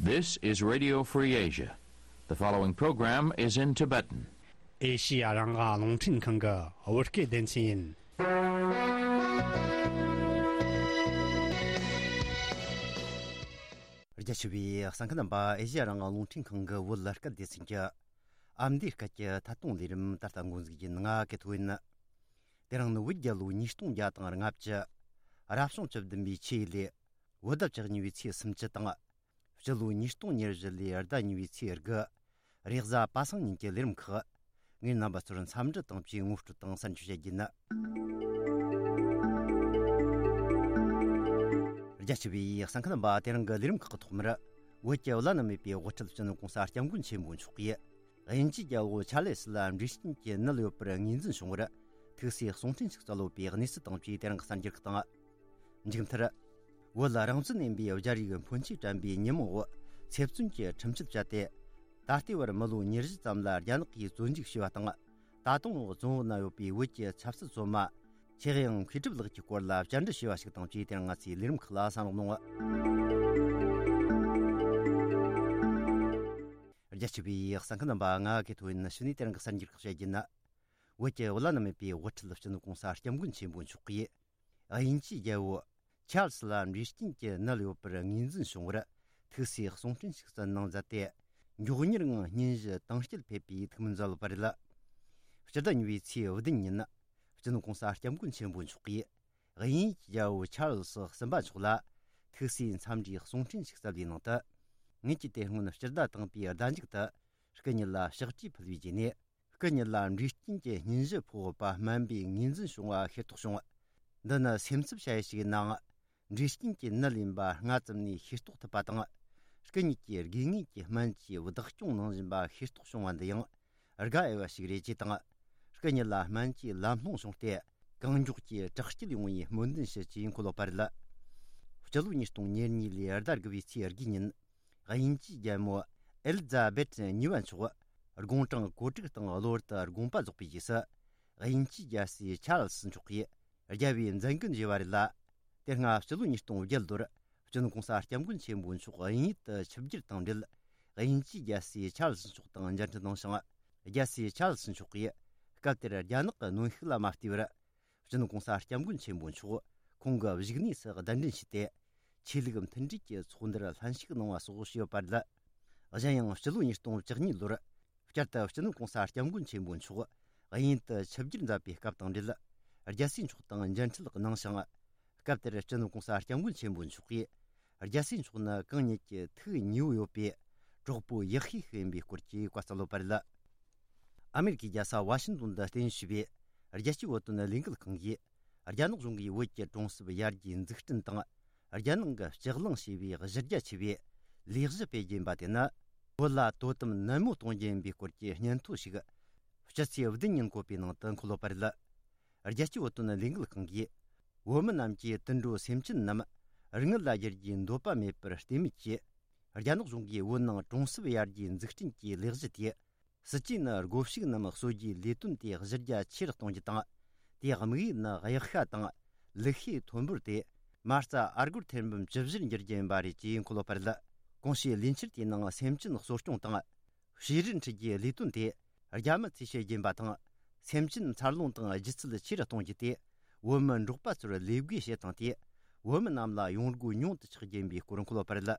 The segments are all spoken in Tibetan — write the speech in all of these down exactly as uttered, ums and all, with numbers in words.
This is Radio Free Asia. The following program is in Tibetan. ཨེ་ཤི་ཡ་རང་དབང་རླུང་འཕྲིན་ཁང་གི་བོད་སྐད་སྡེ་ཚན་ཡིན། རྒྱ་ཆེ་བའི་གསན་མཁན་རྣམ་པ། ཨེ་ཤི་ཡ་རང་དབང་རླུང་འཕྲིན་ཁང་གི་བོད་སྐད་སྡེ་ཚན་གྱི་ཨ་མདོའི་སྐད་ཀྱི་ཐད་གཏོང་ལས་རིམ་ད་ལྟ་འགོ་འཛུགས་ཡིན། ང་ཀེ་ཐོ་ཡིན། དེ་རིང་ནི་བོད་རྒྱལ་ལོ་ཉིས་སྟོང་བརྒྱ་དང་ལྔ་བཅུ། རབ་བྱུང་བཅུ་བདུན་པའི་ཆུ་ཡོས་ལོའི་བོད་ཟླ་བཅུ་གཉིས་པའི་ཚེས་སུམ་ཅུ་དང་། སྤྱི་ལོ་ཉིས་སྟོང་ཉེར་བཞི་ལོའི་ཟླ་གཉིས་པའི་ཚེས་དགུ། རེས་གཟའ་པ་སངས་ཉིན་གྱི་ལས་རིམ་ཁག་ངས་རྣམ་པ་ཚོར་འཚམས་འདྲི་དང་བཅས་ངོ་སྤྲོད་དང་གསར་འགྱུར་བཤད་རྒྱུ་ཡིན། རྒྱ་ཆེ་བའི་གསན་མཁན་རྣམ་པ། དེ་རིང་གི་ལས་རིམ་ཁག་གི་ཐོག་མར། བོད་ཀྱི་བླ་ན་མེད་པའི་དབུ་ཁྲིད་སྤྱི་ནོར་གོང་ས་སྐྱབས་མགོན་ཆེན་པོ་མཆོག་གིས། དབྱིན་ཇིའི་རྒྱལ་པོ་ཆཱ་ལེ་སི་ལ་འབྲས་སྐྱོན་གྱི་ནད་ཡོད་པར་ངོས་འཛིན་བྱུང་བར། ཐུགས་སྲས་གསུང་འཕྲིན་ཞིག་སྩལ་ཡོད་པའི་གནས་ཚུལ་དང་བཅས་དེ་རིང་གི་གསར་འགྱུར་ཁག་དང་། མཇུག་མཐར། བོད་རང་བཙན་ལྡན་པའི་རྒྱལ་རིགས་ཕོན་ཆེ་དྲན་པའི་ཉིན་མོ་འོག་ཚེ་བཙོན་གྱི་ཁྲིམས་གཅོད་བཅད་དེ། ད་ལྟའི་བར་མི་ལོ་ཉེར་བཞི་ཙམ་ལ་རྒྱ་ནག་གིས་བཙོན་འཇུག་བྱས་པ་དང་། ད་དུང་བཙོན་འོག་ན་ཡོད་པའི་བོད་ཀྱི་ཆབ་སྲིད་བཙོན་མ། ཆེ་གཡང་མཁས་གྲུབ་ལགས་ཀྱི་སྐོར་ལ་བཅར་འདྲི་བྱས་པ་ཞིག་དང་བཅས་དེ་རིང་ང་ཚོའི་ལས་རིམ་ཁག་ལ་གསན་རོགས་གནང་། རྒྱ་ཆེ་བའི་གསན་མཁན་རྣམ་པ། ང་ཀེ་ཐོ་ཡིན། ཕྱི་ནས་དེ་རིང་གི་གསར་འགྱུར་ཁག་བཤད་རྒྱུ་ཡིན། བོད་ཀྱི་བླ་ན་མེད་པའི་དབུ་ཁྲིད་སྤྱི་ནོར་གོང་ས་སྐྱབས་མགོན་ཆེན་པོ་མཆོག་གིས། དབྱིན་ཇིའི་རྒྱལ་པོ་ཆཱལ་སི་ལ་འབྲས་སྐྱོན་གྱི་ནད་ཡོད་པར་ངོས་འཛིན་བྱུང་བར། ཐུགས་སྲས་གསུང་འཕྲིན་ཞིག་སྩལ་གནང་མཛད་དེ། མགྱོགས་མྱུར་ངང་སྙུན་གཞི་དྭངས་སྐྱེད་ཕེབས་པའི་ཐུགས་སྨོན་མཛད་ཡོད་པ་རེད། སྤྱི་ཟླ་གཉིས་པའི་ཚེས་བདུན་ཉིན། སྤྱི་ནོར་གོང་ས་སྐྱབས་མགོན་ཆེན་པོ་མཆོག་གིས། དབྱིན་ཇིའི་རྒྱལ་པོ་ཆཱལ་སི་གསུམ་པ་མཆོག་ལ། ཐུགས་སྲས་འཚམས་འདྲིའི་གསུང་འཕྲིན་ཞིག་སྩལ་བའི་ནང་དུ། ངེད་ཀྱི་དེ་སྔོན་སྤྱི་ཟླ་དང་པོའི་ཟླ་མཇུག་ཏུ། སྐུ་ཉིད་ལ་ཕྱག་བྲིས་ཕུལ་བའི་རྗེས་ནས། སྐུ་ཉིད་ལ་འབྲས་སྐྱོན་གྱི་སྙུན་གཞི་ཕོག་ཡོད་པ་སྨན་པས་ངོས་འཛིན་བྱུང་བ་ཤེས་རྟོགས་བྱུང་། འདི་ནི་སེམས་འཚབ་བྱ་ཡུལ་ཞིག་ཡིན་ནའང་། འབྲས་སྐྱོན་གྱི་ནད་ཡིན་པ་སྔ་ཙམ་ནས་ཤེས་རྟོགས་ཐུབ་པ་དང་། སྐུ་ཉིད་ཀྱིས་དགོས་ངེས་ཀྱི་སྨན་བཅོས་བདག་སྐྱོང་གནང་བཞིན་པ་ཤེས་རྟོགས་བྱུང་བ་འདི་ཡང་དགའ་འོས་པ་ཞིག་རེད་ཅེས་དང་། སྐུ་ཉིད་ལ་སྨན་བཅོས་ལམ་ལྷོང་བྱུང་སྟེ། གང་མགྱོགས་ཀྱིས་དྲག་སྐྱེད་ཡོང་བའི་སྨོན་འདུན་ཞུ་ཅེས་འཁོད་ཡོད་པ་རེད། སྤྱི་ལོ་ཉིས་སྟོང་ཉེར་གཉིས་ལོའི་ཟླ་དགུ་པའི་ཚེས་དགུ་ཉིན། དབྱིན་ཇིའི་རྒྱལ་མོ་ཨེ་ལི་ཛ་བེད་གཉིས་པ་མཆོག་དགུང་གྲངས་གོ་དྲུག་དང་གློ་བུར་དུ་དགོངས་པ་རྫོགས་པའི་རྗེས་སུ། དབྱིན་ཇིའི་རྒྱལ་སྲས་ཆཱལ་སི་མཆོག་གིས་རྒྱལ་བའི་མཛད་འགན་བཞེས་པ་རེད་ལ། དེ་སྔ་སྤྱི་ལོ་ཉིས་སྟོང་བརྒྱད་ལོར་སྤྱི་ནོར་གོང་ས་སྐྱབས་མགོན་ཆེན་པོ་མཆོག་དབྱིན་ཡུལ་དུ་ཆིབས་བསྒྱུར་དང་འབྲེལ། དབྱིན་ཇིའི་རྒྱལ་སྲས་ཆཱལ་སི་མཆོག་དང་མཇལ་འཕྲད་གནང་ཞིང་། རྒྱལ་སྲས་ཆཱལ་སི་མཆོག་གིས་སྐབས་དེར་རྒྱ་ནག་གི་གནོན་ཤུགས་ལ་མ་བལྟས་པར། སྤྱི་ནོར་གོང་ས་སྐྱབས་མགོན་ཆེན་པོ་མཆོག་ཁོང་གི་བཞུགས་གནས་སུ་གདན་འདྲེན་བྱས་ཏེ། ཆོས་ལུགས་མཐུན་སྒྲིལ་གྱི་ཚོགས་འདུར་ལྷན་ཞུགས་གནང་བ་སོགས་བྱས་ཡོད་པ་རེད། གཞན་ཡང་སྤྱི་ལོ་ཉིས་སྟོང་བཅུ་གཉིས་ལོར་བསྐྱར་དུ་སྤྱི་ནོར་གོང་ས་སྐྱབས་མགོན་ཆེན་པོ་མཆོག་དབྱིན་ཡུལ་དུ་ཆིབས་བསྒྱུར་མཛད་པའི་སྐབས་དང་འབྲེལ། རྒྱལ་སྲས་མཆོག་དང་མཇལ་འཕྲད་གནང་ཞིང་། སྐབས་དེར་སྤྱི་ནོར་གོང་ས་སྐྱབས་མགོན་ཆེན་པོ་མཆོག་གིས། རྒྱལ་སྲས་མཆོག་ནི་གང་ཉིད་ཀྱི་ཐུགས་ཉེ་བོ་ཡོད་པའི་གྲོགས་པོ་ཡག་ཤོས་ཤིག་ཡིན་པའི་སྐོར་གྱི་བཀའ་སྩལ་ཡོད་པ་རེད། ཨ་མེ་རི་ཁའི་རྒྱལ་ས་ཝ་ཤིང་ཏོན་དུ་རྟེན་གཞི་བྱས་པའི་རྒྱལ་སྤྱིའི་བོད་དོན་ལས་འགུལ་ཁང་གིས། རྒྱ་ནག་གཞུང་གིས་བོད་ཀྱི་གྲོང་གསེབ་ཡར་རྒྱས་འཛུགས་སྐྲུན་དང་། རྒྱལ་ནང་གི་སྤྱི་གླིང་ཞེས་པའི་གཞི་རྒྱ་ཆེ་བའི་ལས་གཞི་སྤེལ་རྒྱུ་ཡིན་པ་དེ་ནི། བོད་ལ་དོ་དམ་ནན་མོ་གཏོང་རྒྱུ་ཡིན་པའི་སྐོར་གྱི་སྙན་ཐོ་ཞིག་སྤྱི་ཚེས་བདུན་ཉིན་བཀོད་པའི་ནང་དུ་འཁོད་ཡོད་པ་རེད། རྒྱལ་སྤྱིའི་བོད་དོན་ལས་འགུལ་ཁང་གིས། བོད་མི་རྣམས་ཀྱིས་དུད་འགྲོ་སེམས་ཅན་རྣམས་རིན་མེད་ལ་བསྒྱུར་རྒྱུའི་འདོད་པ་མེད་པར་བརྟེན་མེད་ཀྱིས། རྒྱ་ནག་གཞུང་གིས་བོད་ནང་གྲོང་གསེབ་ཡར་རྒྱས་འཛུགས་སྐྲུན་གྱི་ལས་གཞི་དེ། སྲིད་ཇུས་ནི་སྒོ་ཕྱུགས་རྣམས་གསོ་རྒྱུའི་ལས་དོན་དེ་གཞི་རྒྱ་ཆེ་རུ་གཏོང་རྒྱུ་དང་། དེའི་དམིགས་ཡུལ་ནི་གཡག་ཤ་དང་ལུག་ཤའི་ཐོན་འབོར་དེ་མ་རྩ་ཨ་སྒོར་ཐེར་འབུམ་བཅུ་བཞིར་འགྱུར་རྒྱུ་ཡིན་པ་རེད་ཅེས་འཁོད་ཡོད་པ་རེད། གོང་ཞུས་ལས་འཆར་དེའི་ནང་སེམས་ཅན་གསོ་སྐྱོང་དང་། བྱུ་རུ་འཁྲིད་རྒྱུའི་ལས་དོན་དེ་རྒྱ་མི་ཚོས་བྱེད་ཀྱིན་པ་དང་། སེམས་ཅན་འཚར་ལོངས་དང་སྒྱུ་རྩལ་ཆེ་རུ་གཏོང་རྒྱུ་དེ་བོད་མི་འབྲོག་པ་ཚོར་ལས་བགོས་བྱེད་སྟངས་དེ་བོད་མི་རྣམས་ལ་ཡོང་སྒོ་ཉུང་དུ་ཆགས་རྒྱུ་ཡིན་པའི་སྐོར་འཁོད་ཡོད་པ་རེད།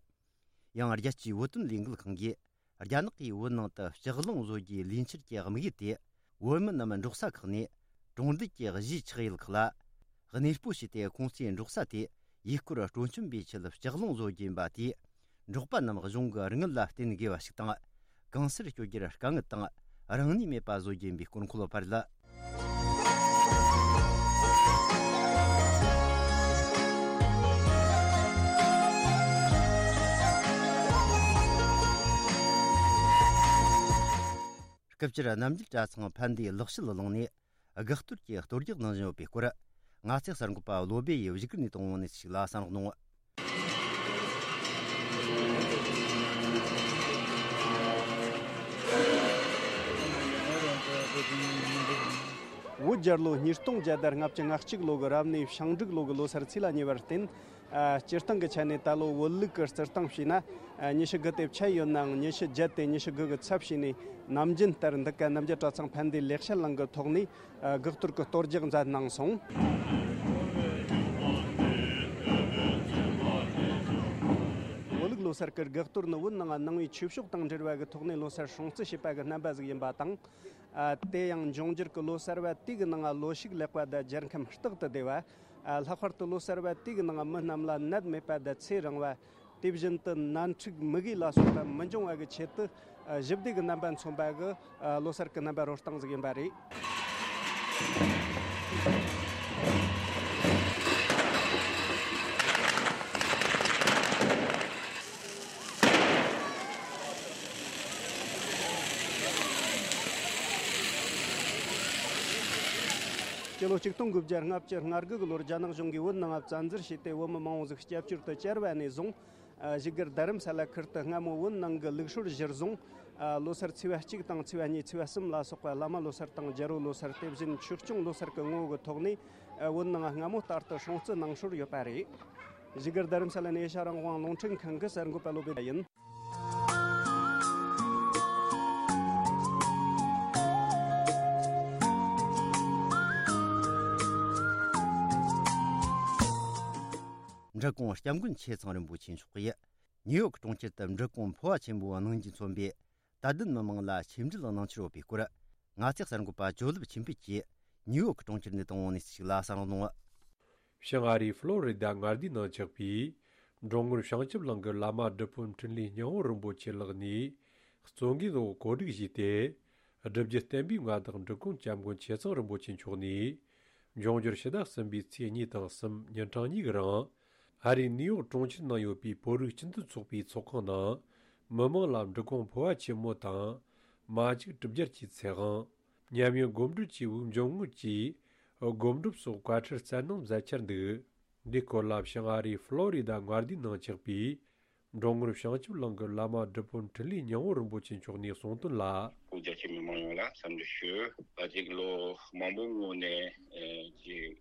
ཡང་རྒྱལ་སྤྱིའི་བོད་དོན་ལས་འགུལ་ཁང་གིས་རྒྱ་ནག་གིས་བོད་ནང་དུ་ལྕགས་གླིང་བཟོ་རྒྱུའི་ལས་འཆར་གྱི་དམིགས་ཡུལ་དེ། བོད་མི་རྣམས་འབྲོག་ས་ཁག་ནས་གྲོང་རྡལ་གྱི་གཞིས་ཆགས་ཡུལ་ཁག་ལ་གནས་སྤོ་བྱས་ཏེ། ཁོང་ཚོའི་འབྲོག་ས་དེ་ཡུལ་སྐོར་སྤྲོ་འཆམ་པའི་ཆེད་ལྕགས་གླིང་བཟོ་རྒྱུ་ཡིན་པ་དེས། འབྲོག་པ་རྣམས་གཞུང་གི་རིན་དངུལ་ལ་བརྟེན་དགོས་པ་ཞིག་དང་། གང་སར་སྐྱོད་རྒྱུར་དཀའ་ངལ་དང་རིང་ནུས་མེད་པ་བཟོ་རྒྱུ་ཡིན་པའི་སྐོར་འཁོད་ཡོད་པ་རེད། སྐབས་འཕྲལ་རྣམ་རྒྱལ་གྲྭ་ཚང་ཕན་བདེ་ལག་ཤེས་གླིང་ནས་དགག་གཏོར་གྱི་གཏོར་རྒྱག་གནང་བཞིན་ཡོད་པའི་སྐོར། ང་ཚོའི་གསར་འགོད་པ་བློ་སྦེ་ཡིས་བཞུགས་སྒར་ནས་བཏང་བའི་གནས་ཚུལ་ཞིག་ལ་གསན་རོགས་གནང་། བོད་རྒྱལ་ལོ་ཉིས་སྟོང་བརྒྱ་དང་ལྔ་བཅུ་ང་གཅིག་ལོ་གི་རབ་གནས་བྱང་འབྲུག་ལོ་གི་ལོ་སར་ཚེས་ལ་ཉེ་བར་བརྟེན། ཨ། སྤྱིར་བཏང་གི་ཆ་ནས་ད་ལོ་བོད་ལུགས་ཀྱི་རྩིས་སྟངས་བྱས་ན། ཨ། ཉི་ཤུ་དགུ་དེ་ཆད་ཡོད་ནའང་ཉི་ཤུ་བརྒྱད་དེ་ཉི་ཤུ་དགུ་གི་ཚབ་བྱས་ནས་ནམ་རྒྱུན་ལྟར་འདི་ག་རྣམ་རྒྱལ་གྲྭ་ཚང་ཕན་བདེ་ལེགས་བཤད་གླིང་གི་ཐོག་ནས། ཨ། དགག་གཏོར་གྱི་གཏོར་རྒྱག་མཛད་གནང་སོང་། བོད་ལུགས་ལོ་སར་གྱི་དགག་གཏོར་ནི་བོད་ནང་ནང་པའི་ཆོས་ཕྱོགས་དང་འབྲེལ་བ་གི་ཐོག་ནས་ལོ་སར་སྲུང་བརྩི་བྱེད་པ་གི་རྣམ་པ་ཟིག་ཡིན་པ་དང་། ཨ། དེ་ཡང་འབྱུང་འགྱུར་གྱི་ལོ་གསར་བ་དེ་གི་ནང་ལོ་ཕྱུགས་ལེགས་པ་དང་རྒྱལ་ཁམས་རྟག་ཏུ་བདེ་བ། ཨ། ལྷག་པར་དུ་ལོ་གསར་བ་དེ་གི་ནང་མི་རྣམས་ལ་ནད་མེད་པ་དང་ཚེ་རིང་བ། དེ་བཞིན་དུ་ནད་འཁྲུག་མུ་གེ་ལ་སོགས་པ་མི་འབྱུང་བ་གི་ཆེད་དུ། ཨ། ཞི་བདེ་གི་རྣམ་པ་མཚོན་པ་གི། ཨ། ལོ་གསར་གྱི་རྣམ་པ་རོལ་སྟངས་ཟིག་ཡིན་པ་རེད། སྤྱི་ལོ་ཆིག་སྟོང་དགུ་བརྒྱ་ལྔ་བཅུ་ང་དགུ་གི་ལོར་རྒྱ་ནག་གཞུང་གིས་བོད་ནང་བཙན་འཛུལ་བྱས་ཏེ། བོད་མི་མང་བོ་ཟིག་སྐྱབས་བཅོལ་དུ་བཅར་བ་ནས་བཟུང་། ཨ། བཞུགས་སྒར་རྡ་རམ་ས་ལ་ཁུལ་དུ་སྔ་མོ་བོད་ནང་གི་ལུགས་སྲོལ་གཞིར་བཟུང་། ཨ། ལོ་སར་ཚེས་པ་གཅིག་དང་ཚེས་པ་གཉིས་ཚེས་པ་གསུམ་ལ་སོགས་པ་བླ་མ་ལོ་སར་དང་རྒྱལ་པོ་ལོ་སར། དེ་བཞིན་ཆོས་སྐྱོང་ལོ་སར་གྱི་ངོ་བོ་གི་ཐོག་ནས། ཨ། བོད་ནང་སྔ་མོ་ལྟར་དུ་སྲུང་བརྩི་གནང་སྲོལ་ཡོད་པ་རེད། བཞུགས་སྒར་རྡ་རམ་ས་ལ་ནས་ཨེ་ཤ་རང་དབང་རླུང་འཕྲིན་ཁང་གི་གསར་འགོད་པ་བློ་བྷེ་ཡིན། འབྲི་གུང་སྐྱབས་མགོན་ཆེ་ཚང་རིན་པོ་ཆེ་མཆོག་གིས་ནིའུ་ཡོག་གྲོང་ཁྱེར་དུ་འབྲི་གུང་འཕོ་བ་ཆེན་མོའི་གནང་རྒྱུས་མཚོན་པའི་དད་ལྡན་མི་མང་ལ་ཆིབས་འགྲིལ་གནང་འཆར་ཡོད་པའི་སྐོར། ང་ཚོའི་གསར་འགོད་པ་ཇོ་ལེབ་ཆོས་འཕེལ་གྱིས་ནིའུ་ཡོག་གྲོང་ཁྱེར་ནས་བཏང་བ་ནས་ཞིག་ལ་གསན་རོགས་གནང་། བྱང་ཨ་རིའི་ཧྥ་ལོ་རི་ད་མངའ་སྡེའི་ནང་ཆགས་པའི་འབྲོང་ངོར་བྱང་ཆུབ་གླིང་གི་བླ་མ་སྒྲུབ་དཔོན་འཕྲིན་ལས་སྙིང་པོ་རིན་པོ་ཆེ་ལགས་ནས་གཙོ་འགན་འོག་གོ་སྒྲིག་བྱས་ཏེ། སྒྲུབ་བརྒྱུད་བསྟན་པའི་མངའ་བདག་འབྲི་གུང་སྐྱབས་མགོན་ཆེ་ཚང་རིན་པོ་ཆེ་མཆོག་ནས། འབྱུང་འགྱུར་ཕྱི་ཟླ་གསུམ་པའི་ཚེས་གཉིས་དང་གསུམ་ཉིན་གྲངས་གཉིས་ཀྱི་རིང་། ཨ་རིའི་ནིའུ་ཡོག་གྲོང་ཁྱེར་ནང་ཡོད་པའི་བོད་རིགས་སྤྱི་མཐུན་ཚོགས་པའི་ཚོགས་ཁང་ནང་། མི་མང་ལ་འབྲི་གུང་འཕོ་བ་ཆེན་མོ་དང་། མ་ཅིག་གྲུབ་རྒྱལ་གྱི་ཚེ་དབང་། ཉམས་མྱོང་སྒོམ་སྒྲུབ་བཅས་པའི་འབྱུང་རྔུབ་ཀྱི་སྒོམ་སྒྲུབ་སོགས་བཀའ་ཁྲིད་སྩལ་གནང་མཛད་འཆར་འདུག། འདིའི་སྐོར་ལ་བྱང་ཨ་རིའི་ཧྥ་ལོ་རི་ད་མངའ་སྡེའི་ནང་ཆགས་པའི་འབྲོང་ངོར་བྱང་ཆུབ་གླིང་གི་བླ་མ་སྒྲུབ་དཔོན་འཕྲིན་ལས་སྙིང་པོ་རིན་པོ་ཆེ་མཆོག་ནས་གསུངས་དོན་ལ། བོད་རྒྱ་ཆེ་མི་མང་ཡོངས་ལ་འཚམས་འདྲི་ཞུ། ད་ཅིག་ལོ་མང་པོའི་སྔོན་ནས་ཨེ་ཅིག་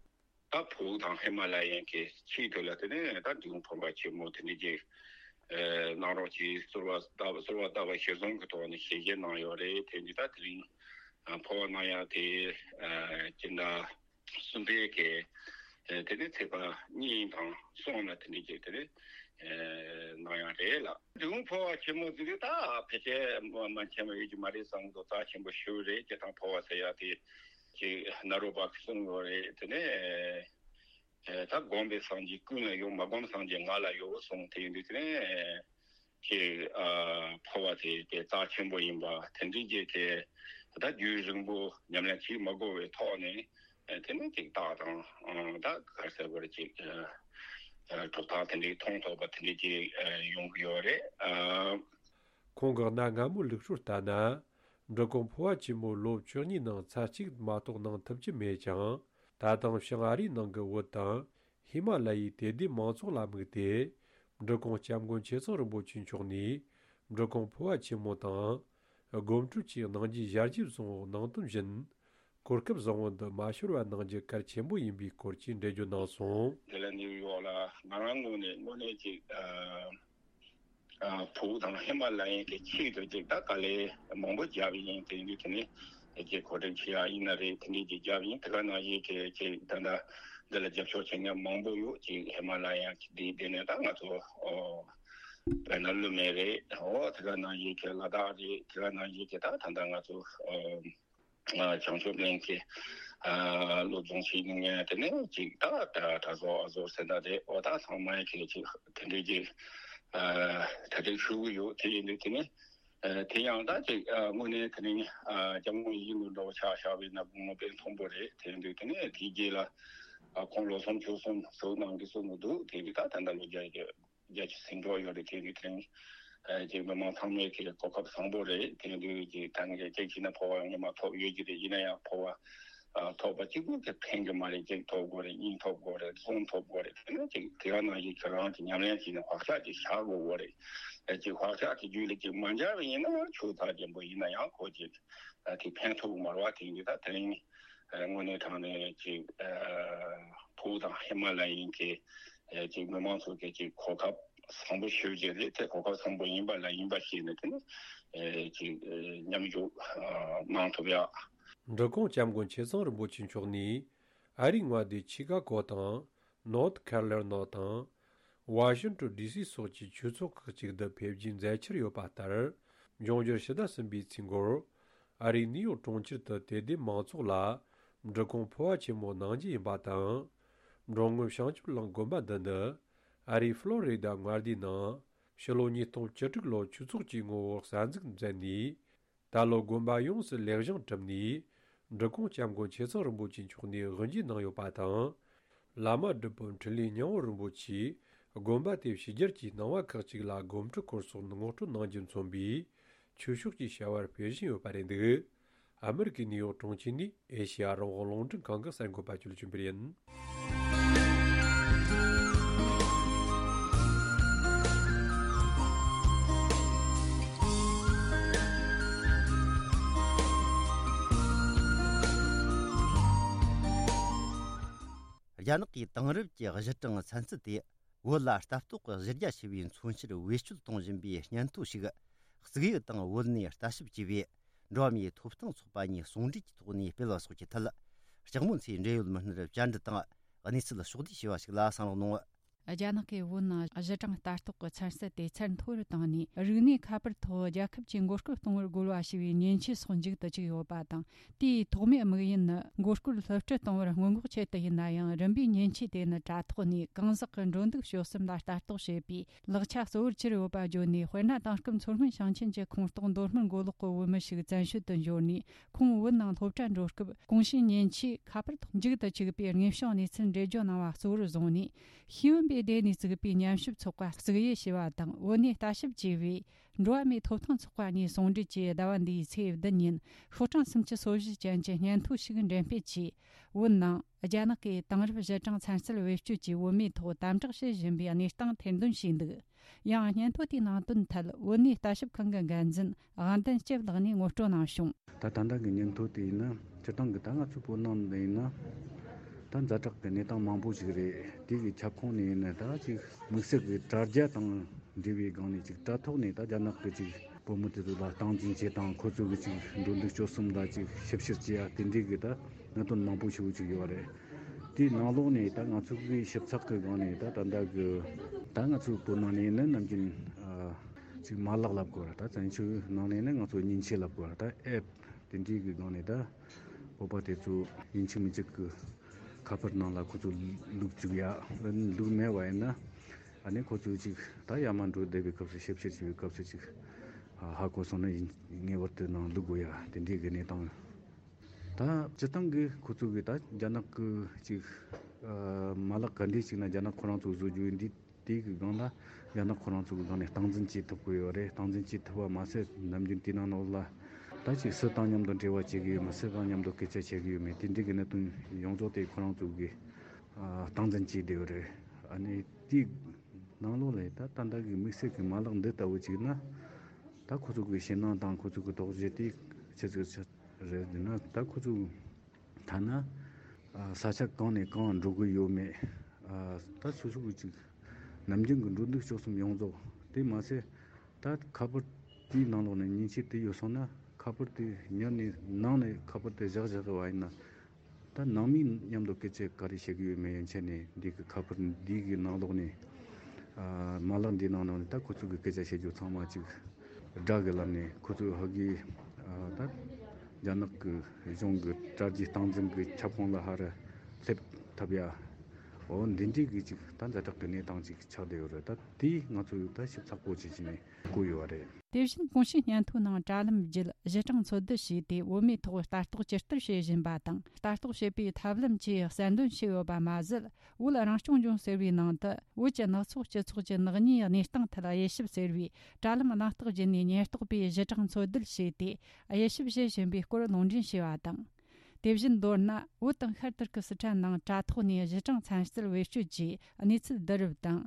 ད་བོད་དང་ཧི་མ་ལ་ཡའི་གི་ཆེས་མཐོ་ལ་དེ་ནས་ད་འབྲི་གུང་འཕོ་བ་ཆེན་མོ་དེ་འདྲ་ཅིག་ཨེ་གནང་རོགས་གྱིས་གསོལ་བ་བཏབ། གསོལ་བ་བཏབ་པ་གཞིར་བཟུང་གི་ཐོག་ནས་ཞལ་བཞེས་གནང་ཡོད་རེད། དེ་འདི་ད་དེ་རིང་འཕོ་བ་གནང་ཡག་དེ་ཨེ་སྤྱི་ཟླ་གསུམ་པའི་གི་ཨེ་དེ་ནས་ཚེས་པ་གཉིས་དང་གསུམ་ལ་དེ་འདྲ་ཅིག་དེ་ནས་ཨེ་གནང་ཡག་རེད་ལ། འབྲི་གུང་འཕོ་བ་ཆེན་མོ་ཟེར་དུས་ད་ཕལ་ཆེར་མ་མ་མཁྱེན་པ་ཡོད་ཀྱི་མ་རེད་བསམ་གི་འདུག། རྩ་ཆེན་པོ་ཞེ་པོ་རེད། སྤྱིར་བཏང་འཕོ་བ་ཟེར་ཡག་དེ་ཅིག་ནཱ་རོ་པ་གིས་གསུངས་ཡོད་རེད། དེ་ནས་ཨེ་ད་སྒོམ་པའི་སངས་རྒྱས་ཀུན་ལ་ཡོད། མ་སྒོམ་སངས་རྒྱས་ང་ལ་ཡོད་གསུངས། དེ་ཡིན་དུས་དེ་ནས་ཅིག་ཨ་འཕོ་བ་དེ་དེ་རྩ་ཆེན་པོ་ཡིན་པ་དེ་འདྲའི་རྗེས་དེ་ད་རྒྱུན་རིང་པོ་ཉམས་ལེན་བྱེད་མ་དགོས་པའི་ཐོག་ནས་དེ་ནས་ཅིག་རྟགས་དང་ད་ག་རེ་ཟེར་དགོས་རེད། ཅིག་གྲུབ་རྟགས་དེ་འདྲའི་མཐོང་ཐུབ་པ་དེ་འདྲའི་ཅིག་ཡོང་གི་ཡོད་རེད། ཁོང་གི་གནའ་སྔ་མོའི་ལུགས་སྲོལ་ལྟར་ན། འབྲི་གུང་འཕོ་བ་ཆེན་མོ་ལོ་བཅུ་གཉིས་ནང་ཚར་གཅིག་མ་གཏོགས་གནང་ཐུབ་ཀྱི་མེད་ཀྱང་། ད་དུང་བྱང་ཨ་རིའི་ནང་གི་བོད་དང་ཧི་མ་ལ་ཡའི་དད་ལྡན་མང་ཚོགས་ལ་དམིགས་ཏེ། འབྲི་གུང་སྐྱབས་མགོན་ཆེ་ཚང་རིན་པོ་ཆེ་མཆོག་ནས་འབྲི་གུང་འཕོ་བ་ཆེན་མོ་དང་། སྒོམ་སྒྲུབ་བཅས་གནང་རྒྱུའི་ཞལ་བཞེས་བཟང་པོ་གནང་དོན་བཞིན། གོ་སྐབས་བཟང་པོ་འདི་མ་ཤོར་བ་གནང་རྒྱུ་གལ་ཆེན་པོ་ཡིན་པའི་སྐོར་གྱི་འགྲེལ་བརྗོད་གནང་སོང་། དེ་ལ་ནིའུ་ཡོག་ལ་ང་རང་ངོས་ནས་དངོས་གནས་ཅིག་ཨ་ཨ་བོད་དང་ཧི་མ་ལ་ཡའི་གི་ཆེད་དུ་ཅིག་ད་དཀའ་ལས་མང་པོ་བརྒྱབ་ཡིན། དེ་ཡིན་དུས་དེ་ནས་ཅིག་གོ་སྒྲིག་བྱེད་ཡག་ཡིན་ན་རེད། དེ་འདྲས་ཅིག་བརྒྱབ་ཡིན། དེ་ག་ནང་བཞིན་གི་ཅིག་ད་ལྟ་འདི་ལ་རྒྱབ་སྐྱོར་བྱེད་མཁན་མང་པོ་ཡོད། ཅིག་ཧི་མ་ལ་ཡ་འདི་འདི་ནས་ད་ང་ཚོ་ཨོ་དཔེར་ན་ཀླུ་སྨན་རེད། ཨོ་དེ་ག་ནང་བཞིན་གི་ལ་དྭགས་རེད། དེ་ག་ནང་བཞིན་གི་ད་ད་ལྟ་ང་ཚོ་ཨོ། ཨ་བྱང་ཆུབ་གླིང་གི་ཨ་སློབ་སྦྱོང་བྱེད་མཁན་དེ་ནས་ཅིག་ད་ད་གྲྭ་ཚང་ཨ་ཟོར་ཟེར་ན་རེད། འོ་ད་ཚང་མ་གི་ཅིག་དེ་འདྲའི་ཅིག་ཨ་གྲ་སྒྲིག་ཞུ་གི་ཡོད། དེ་ཡིན་དུས་དེ་ནས་ཨ་དེ་ཡང་ད་ཅིག་ཨ་དངོས་གནས་དེ་རིང་ཨ་སྐྱབས་མགོན་ཡིད་བཞིན་ནོར་བུ་འདྲ་བོ་ཆ་བཞག་པ་ཡིན་ན་དགུང་ལོ་དཔེ་མཐོན་པོ་རེད། དེ་ཡིན་དུས་དེ་ནས་དེའི་རྗེས་ལ་ཨ་ཁོང་ལོ་གསུམ་ཕྱོགས་གསུམ་ཟུར་གནང་གི་གསུང་གི་འདུག། དེ་ཡིན་དུས་ད་ད་ལྟ་ལོ་བརྒྱད་ཀྱི་རྒྱ་ཆེ་ཟིན་འགྲོ་ཡོད་རེད། དེ་ནི་དེ་རིང་ཨ་ཅིག་མི་མང་ཚང་མས་ཀྱི་གོ་སྐབས་བཟང་པོ་རེད། དེ་དུས་ཀྱི་ད་ནི་ཅིག་བྱས་ན་འཕོ་བ་ཡང་ཉི་མ་ཐོབ་ཡོད་ཀྱི་རེད། ཡིན་ན་ཡང་འཕོ་བ་ཨ་ཐོབ་པ་གཅིག་པུ་གི་ཕན་གྱི་མ་རེད། གཅིག་ཐོབ་དགོས་རེད། གཉིས་ཐོབ་དགོས་རེད། གསུམ་ཐོབ་དགོས་རེད། དེ་ནི་ཅིག་དེ་ག་ནང་བཞིན་ཁྱོད་རང་གི་ཉམས་ལེན་བྱས་ནས་བག་ཆགས་ཅིག་བཞག་དགོས་དགོས་རེད། ཨ་ཅིག་བག་ཆགས་དེ་རྒྱུད་ལ་ཅིག་མ་འཇགས་པ་ཡིན་ན་ཡང་ཆོས་ཚར་རྒྱན་པོ་ཡིན་ན་ཡང་ཁོ་ཅིག་ཨ་དེ་ཕན་ཐོགས་ཀྱི་མ་རེད་བ། དེ་ཡིན་དུས་ད་དེ་རིང་། དངོས་གནས་དྲང་གནས་ཅིག་ཕུ་བོ་དང་ཧི་མ་ལ་ཡིན་གྱི་ཅིག་མི་མང་ཚོ་གི་ཅིག་གོ་སྐབས་བཟང་པོ་ཞེ་པོ་ཅིག་རེད། དེ་གོ་སྐབས་བཟང་པོ་ཡིན་པ་ལ་ཡིན་པ་ཤེས་ནས་དེ་ནི་ཅིག་མཉམ་ཞུགས་གནང་ཐུབ་ཡ། འབྲི་གུང་སྐྱབས་མགོན་ཆེ་ཚང་རིན་པོ་ཆེ་མཆོག་ནས་ཨ་རིའི་མངའ་སྡེ་ཆི་ཀ་གོ་དང་ནོར་ཐ་ཁ་རོ་ལི་ན་དང་ཝ་ཤིང་ཊོན་ཌི་སི་སོགས་ཀྱི་ཆོས་ཚོགས་ཁག་ཅིག་ཏུ་ཕེབས་རྒྱུའི་མཛད་འཆར་ཡོད་པ་ལྟར། འབྱུང་འགྱུར་ཕྱི་ཟླ་གསུམ་པའི་ཚེས་འགོར་ཨ་རིའི་ནིའུ་ཡོག་གྲོང་ཁྱེར་དུ་དད་ལྡན་མང་ཚོགས་ལ་འབྲི་གུང་ཕུར་བ་ཆེན་མོ་གནང་རྒྱུ་ཡིན་པ་དང་། འབྲོང་ངོས་བྱང་ཆུབ་གླིང་དགོན་པ་འདི་ནི་ཨ་རིའི་ཕློ་རི་ཌ་མངའ་སྡེའི་ནང་ཕྱི་ལོ་ཉིས་སྟོང་བཅུ་དྲུག་ལོར་ཆོས་ཚོགས་ཀྱི་ངོ་བོར་གསར་འཛུགས་མཛད་ནས། ད་ལོ་དགོན་པ་ཡོངས་སུ་ལེགས་བཞེངས་གྲུབ་ནས། འབྲི་གུང་སྐྱབས་མགོན་ཆེ་ཚང་རིན་པོ་ཆེ་མཆོག་ནས་དབུ་འབྱེད་གནང་ཡོད་པ་དང་། བླ་མ་སྒྲུབ་པ་འཕྲིན་ལས་སྙིང་པོ་རིན་པོ་ཆེས་དགོན་པ་དེ་ཕྱི་རྒྱལ་གྱི་སྣང་བ་ཁག་ཅིག་ལ་སྒོམ་སྒྲུབ་སྐོར་སོགས་ངོ་སྤྲོད་གནང་རྒྱུ་མཚོན་པའི་ཆོས་ཕྱོགས་ཀྱི་བྱ་བར་ཕེབས་བཞིན་ཡོད་པ་རེད་འདུག་ཨ་མི་རི་ཀའི་ནིའུ་ཡོག་གྲོང་ཁྱེར་ནས་ཨེ་ཤེ་ཡ་རང་དབང་རླུང་འཕྲིན་ཁང་གི་གསར་འགོད་པ་ཅོ་ལི་ཅུན་པེར་ཡིན། རྒྱ་ནག་གི་དེང་རབས་ཀྱི་གཞི་གྲངས་ཚན་རྩལ་དེ། བོད་ལ་ལྟ་རྟོག་གི་གཞི་རྒྱ་ཆེ་བའི་མཚོན་ཕྱིར་བེད་སྤྱོད་གཏོང་བཞིན་པའི་སྙན་ཐོ་ཞིག་གཙུག་ཡིག་དང་བོད་གནས་ལྟ་ཞིབ་ཅེས་པའི་འགྲོ་བ་མིའི་ཐོབ་ཐང་ཚོགས་པ་གཉིས་ཟུང་འབྲེལ་གྱི་ཐོག་ནས་སྤེལ་བ་སོགས་ཀྱི་ཐད། ལྕགས་མོ་མཚོས་འབྲེལ་ཡོད་མི་སྣར་བཅར་འདྲི་དང་གནས་ཚུལ་ཕྱོགས་བསྡུས་བྱས་པ་ཞིག་ལ་གསན་རོགས་གནང་། རྒྱ་ནག་གིས་བོད་ནང་གཞི་གྲངས་ལྟ་རྟོག་གི་ཚན་རྩལ་དེ་ཚད་མཐོ་རུ་བཏང་ནས། རིག་གནས་ཁ་པར་ཐོག་རྒྱལ་ཁབ་ཀྱིས་མགོ་སྐོར་གཏོང་བར་རྒོལ་བ་ཞེས་པའི་མཉེན་ཆས་སོགས་མཇུག་ཏུ་བཅུག་ཡོད་པ་དང་། དེའི་ཐོག་མའི་དམིགས་ཡུལ་ནི་མགོ་སྐོར་སློབ་ཁྲིད་གཏོང་བར་སྔོན་འགོག་ཆེད་དུ་ཡིན་ན་ཡང་། རིམ་པས་མཉེན་ཆས་དེ་ནི་དྲ་ཐོག་ནས་གང་ཟག་གི་འགྲོ་འདུག་སྤྱོད་གསུམ་ལ་ལྟ་རྟོག་བྱེད་པའི་ལག་ཆ་གཙོ་བོར་གྱུར་ཡོད་པ་བརྗོད་ནས། དཔེར་ན། དེང་སྐབས་མཚོ་སྔོན་ཞིང་ཆེན་གྱི་ཁོངས་གཏོགས་མདོ་སྨད་མགོ་ལོག་གི་བོད་མི་ཞིག་བཙན་བྱོལ་དུ་འབྱོར་ནས། ཁོང་བོད་ནང་སློབ་གྲྭ་འགྲོ་སྐབས་གོང་ཞུས་མཉེན་ཆས་ཁ་པར་ཐོག་མཇུག་ཏུ་བཅུག་པའི་དངོས་བྱུང་གནས་ཚུལ་འགྲེལ་བརྗོད་གནང་བ་གཙོ་བོར་བཟུང་ནས། ཤེས་ཡོན་པའི་སྡེ་ནས་བཙུགས་པའི་ཉམས་ཞིབ་ཚོགས་པ་གཙུག་དབྱེ་ཞེས་པ་དང་། བོད་གནས་ལྟ་ཞིབ་ཅེས་པའི་འགྲོ་བ་མིའི་ཐོབ་ཐང་ཚོགས་པ་གཉིས་ཟུང་འབྲེལ་གྱིས་ཟླ་བ་འདིའི་ཚེས་བདུན་ཉིན་ཤོག་གྲངས་སུམ་ཅུ་སོ་བཞི་ཅན་གྱི་སྙན་ཐོ་ཞིག་འགྲེམས་སྤེལ་གྱིས། བོད་ནང་རྒྱ་ནག་གིས་དེང་རབས་གཞི་གྲངས་ཚན་རྩལ་བེད་སྤྱོད་ཀྱིས་བོད་མིའི་ཐོག་དམ་དྲག་བྱེད་བཞིན་པའི་གནས་སྟངས་ཐེར་འདོན་བྱས་འདུག་ཡང་སྙན་ཐོ་དེའི་ནང་དོན་ཐད་བོད་གནས་ལྟ་ཞིབ་ཁང་གི་འགན་འཛིན་དབང་ལྡན་སྐྱབས་ལགས་ནས་ངོ་སྤྲོད་གནང་བྱུང་། ད་ད་ལྟ་གི་སྙན་ཐོ་དེ་ཡིན་ན་སྤྱིར་བཏང་གི་ད་ང་ཚོའི་བོད་ནང་ནས་ཡིན་ན་ད་ཛ་དྲག་གི་གནས་སྟངས་མང་པོ་ཞིག་རེད། དེ་གི་ཁྱབ་ཁོངས་ནས་ཡིན་ན་ད་ཅིག་དམིགས་བསལ་གྱི་དྲ་རྒྱ་དང་འབྲེལ་བའི་སྒང་ནས་ཅིག་དྲ་ཐོག་ནས་ད་རྒྱ་ནག་གི་ཅིག་བུ་མོ་དེ་ཚོ་ལ་སྟངས་འཛིན་བྱེད་དང་། ཁོ་ཚོ་གི་ཅིག་འགྲོ་འདུག་སྤྱོད་གསུམ་ལ་ཅིག་ཞིབ་བཤེར་བྱེད་ཡ་དེ་འདྲའི་གི་ད་གནད་དོན་མང་པོ་ཞིག་ཅིག་ཡོད་རེད། དེའི་ནང་ལོགས་ནས་ད་ང་ཚོ་གི་ཞིབ་ཚགས་གི་སྒང་ནས་ད་ད་ལྟ་གི་ད་ང་ཚོའི་བོད་ནང་ནས་ནི་ནམ་རྒྱུན་ཨ་ཅིག་མ་ལག་ལབ་དགོས་ར། ད་བཙན་བྱོལ་ནང་ནས་ནི་ང་ཚོ་མཉེན་ཆས་ལབ་དགོས་ར། ད་ཨེབ་དེ་འདྲའི་གི་སྒང་ནས་ད་བོད་པ་དེ་ཚོ་ཡིན་གཅིག་མིན་གཅིག་གི་ཁ་པར་ནང་ལ་ཁོ་ཚོ་བླུགས་བཅུག་ཡ། བླུགས་མེད་པ་ཡིན་ན་ཨ་ནི་ཁོ་ཚོ་ཅིག་ད་ཡར་མར་འགྲོ་བསྡད་པའི་སྐབས་སུ་ཞིབ་བཤེར་བྱེད་པའི་སྐབས་སུ་ཅིག་ཧ་གོ་སོང་ན་ཡིན་ངེས་པར་དུ་ནང་བླུགས་དགོས་ཡ་དེ་འདྲའི་གི་གནས་སྟངས། ད་སྤྱིར་བཏང་གི་ཁོ་ཚོ་གི་ད་རྒྱ་ནག་གི་ཅིག་ཨ་མ་ལག་ག་འདྲས་ཅིག་ན་རྒྱ་ནག་ཁོ་རང་ཚོ་བཟོ་རྒྱུ་ཡིན་དུས་དེའི་གི་སྒང་ལ་རྒྱ་ནག་ཁོ་རང་ཚོ་གི་སྒང་ནས་སྟངས་འཛིན་བྱེད་ཐུབ་ཀྱི་ཡོད་རེད། སྟངས་འཛིན་བྱེད་ཐུབ་པ་མ་ཟད་ནམ་རྒྱུན་དེའི་ནང་ལོགས་ལ་ད་ཅིག་སུ་དང་མཉམ་དུ་འབྲེལ་བ་བྱེད་ཀྱི་ཡོད་མེད། སུ་དང་མཉམ་དུ་སྐད་ཆ་བཤད་ཀྱི་ཡོད་མེད། དེ་འདྲའི་གི་གནད་དོན་ཡོངས་རྫོགས་དེ་ཁོ་རང་ཚོ་གི་ཨ་སྟངས་འཛིན་བྱེད་བསྡད་ཡོད་རེད། ཨ་ནི་དེའི་ནང་ལོགས་ལ་ད་ད་ལྟ་གི་དམིགས་བསལ་གི་མ་ལག་འདི་ལྟ་བུ་ཅིག་ན་ད་ཁོ་ཚོ་གི་ཞེད་སྣང་དང་ཁོ་ཚོ་གི་དོགས་གཞི་དེ་ཆི་ཟིག་ཆི་རེད་ཟེར་ན། ད་ཁོ་ཚོ་ཐ་ན་ཨ་ས་ཆ་གང་ནས་གང་འགྲོ་གི་ཡོད་མེད། ཨ་ད་སོ་སོ་གི་ཅིག་ནམ་རྒྱུན་གི་འགྲོ་འདུག་སྤྱོད་གསུམ་ཡོངས་རྫོགས་དེ་མ་ཟད་ད་ཁ་པར་དེའི་ནང་ལོགས་ནས་མཉེན་ཆས་དེ་ཡོད་སོང་ན་ཁ་པར་དེ་ཉར་ནས་ནང་ནས་ཁ་པར་དེ་བཞག་བཞག་གི་བ་ཡིན་ན། ད་ནང་མིའི་མཉམ་དུ་སྐད་ཆ་ག་རེ་བཤད་ཀྱི་ཡོད་མེད་ཡན་ཆད་ནས་འདི་གི་ཁ་པར་འདི་གི་ནང་ལོགས་ནས་ཨ་མ་ལག་འདིའི་ནང་ནང་ནས་ད་ཁོ་ཚོ་གི་སྐད་ཆ་བཤད་རྒྱུ་ཚང་མ་ཅིག་སྒྲ་གི་ལམ་ནས་ཁོ་ཚོ་ཧ་གི་ཨ་ད་རྒྱ་ནག་གི་གཞུང་གི་དྲ་རྒྱའི་སྟངས་འཛིན་གི་ཁྱབ་ཁོངས་ལ་ཧ་ར་སླེབས་ཐུབ་ཡ། འོ་འདི་འདྲའི་གི་ཅིག་ད་ཛ་དྲག་གི་གནས་སྟངས་ཅིག་ཆགས་བསྡད་ཡོད་རེད། ད་དེ་ང་ཚོ་ད་ཞིབ་ཚགས་པོ་བྱེད་ཀྱི་ནས། བཀོད་ཡོད་པ་རེད། དེ་བཞིན་གོང་ཞུས་སྙན་ཐོའི་ནང་དྲ་ལམ་བརྒྱུད་གཞི་གྲངས་འཚོལ་བསྡུ་བྱས་ཏེ་བོད་མིའི་ཐོག་ལྟ་རྟོག་ཇི་ལྟར་བྱེད་བཞིན་པ་དང་། ལྟ་རྟོག་བྱེད་པའི་ཐབས་ལམ་བཅས་གསལ་འདོན་བྱས་ཡོད་པ་མ་ཟད། བོད་རང་སྐྱོང་ལྗོངས་ཟེར་བའི་ནང་དུ་བོད་ཀྱི་ནག་ཚོགས་སྤྱི་ཚོགས་ཀྱི་ནག་ཉེས་གནས་སྟངས་ཐད་དབྱེ་ཞིབ་ཟེར་བའི་དྲ་ལམ་གནང་རྟགས་བརྒྱུད་ནས་ཉེན་རྟོག་པས་གཞི་གྲངས་འཚོལ་བསྡུ་བྱས་ཏེ་དབྱེ་ཞིབ་བྱེད་བཞིན་པའི་སྐོར་ལུང་འདྲེན་བྱས་པ་དང་། དེ་བཞིན་མདོར་ན། བོད་དང་ཤར་ཏུར་ཀི་སི་ཐན་ནང་དྲ་ཐོག་ནས་གཞི་གྲངས་ཚན་རྩལ་བེད་སྤྱོད་ཀྱིས་གནས་ཚུལ་བསྡུ་རུབ་དང་།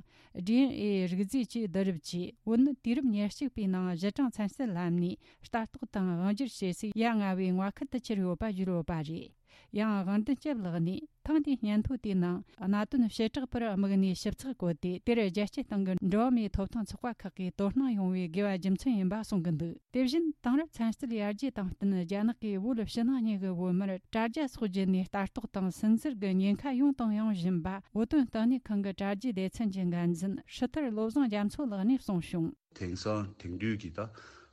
ཌི་ཨེན་ཨེ་རིགས་རྫས་བཅས་བསྡུ་རུབ་ཀྱིས། བོད་ནི་དུས་རབས་ཉེར་གཅིག་པའི་ནང་གཞི་གྲངས་ཚན་རྩལ་ལམ་ནས་ལྟ་རྟོག་དང་དབང་སྒྱུར་བྱེད་སའི་ཡ་ང་བའི་མངའ་ཁུལ་དུ་གྱུར་ཡོད་པ་བརྗོད་ཡོད་པ་རེད། ཡང་དབང་ལྡན་སྐྱབས་ལགས་ནས། ཐེངས་འདིའི་སྙན་ཐོ་དེའི་ནང་གནད་དོན་བྱེ་བྲག་པར་དམིགས་ནས་ཞིབ་ཚགས་བཀོད་དེ། དེར་རྒྱལ་སྤྱིའི་སྟེང་གི་འགྲོ་བ་མིའི་ཐོབ་ཐང་ཚོགས་པ་ཁག་གིས་དོ་སྣང་ཡོང་བའི་དགོས་པ་རྒྱུ་མཚན་ཡིན་པ་གསུང་གི་འདུག་དེ་བཞིན་དེང་རབས་ཚན་རྩལ་ཡར་རྒྱས་དང་བསྟུན། རྒྱ་ནག་གིས་བོད་ཕྱི་ནང་གཉིས་ཀྱི་བོད་མིར་དྲ་རྒྱ་སོགས་བརྒྱུད་ནས་ལྟ་རྟོག་དང་སུན་གཙེར་གྱི་ཉེན་ཁ་ཡོང་དང་ཡོང་བཞིན་པ། བོད་དོན་ལྟེ་གནས་ཁང་གི་དྲ་རྒྱའི་སྡེ་ཚན་གྱི་འགན་འཛིན་ཧྲི་ཐར་བློ་བཟང་རྒྱ་མཚོ་ལགས་ནས་གསུངས་བྱུང་། དེང་སང་དེང་དུས་ཀྱི་ད་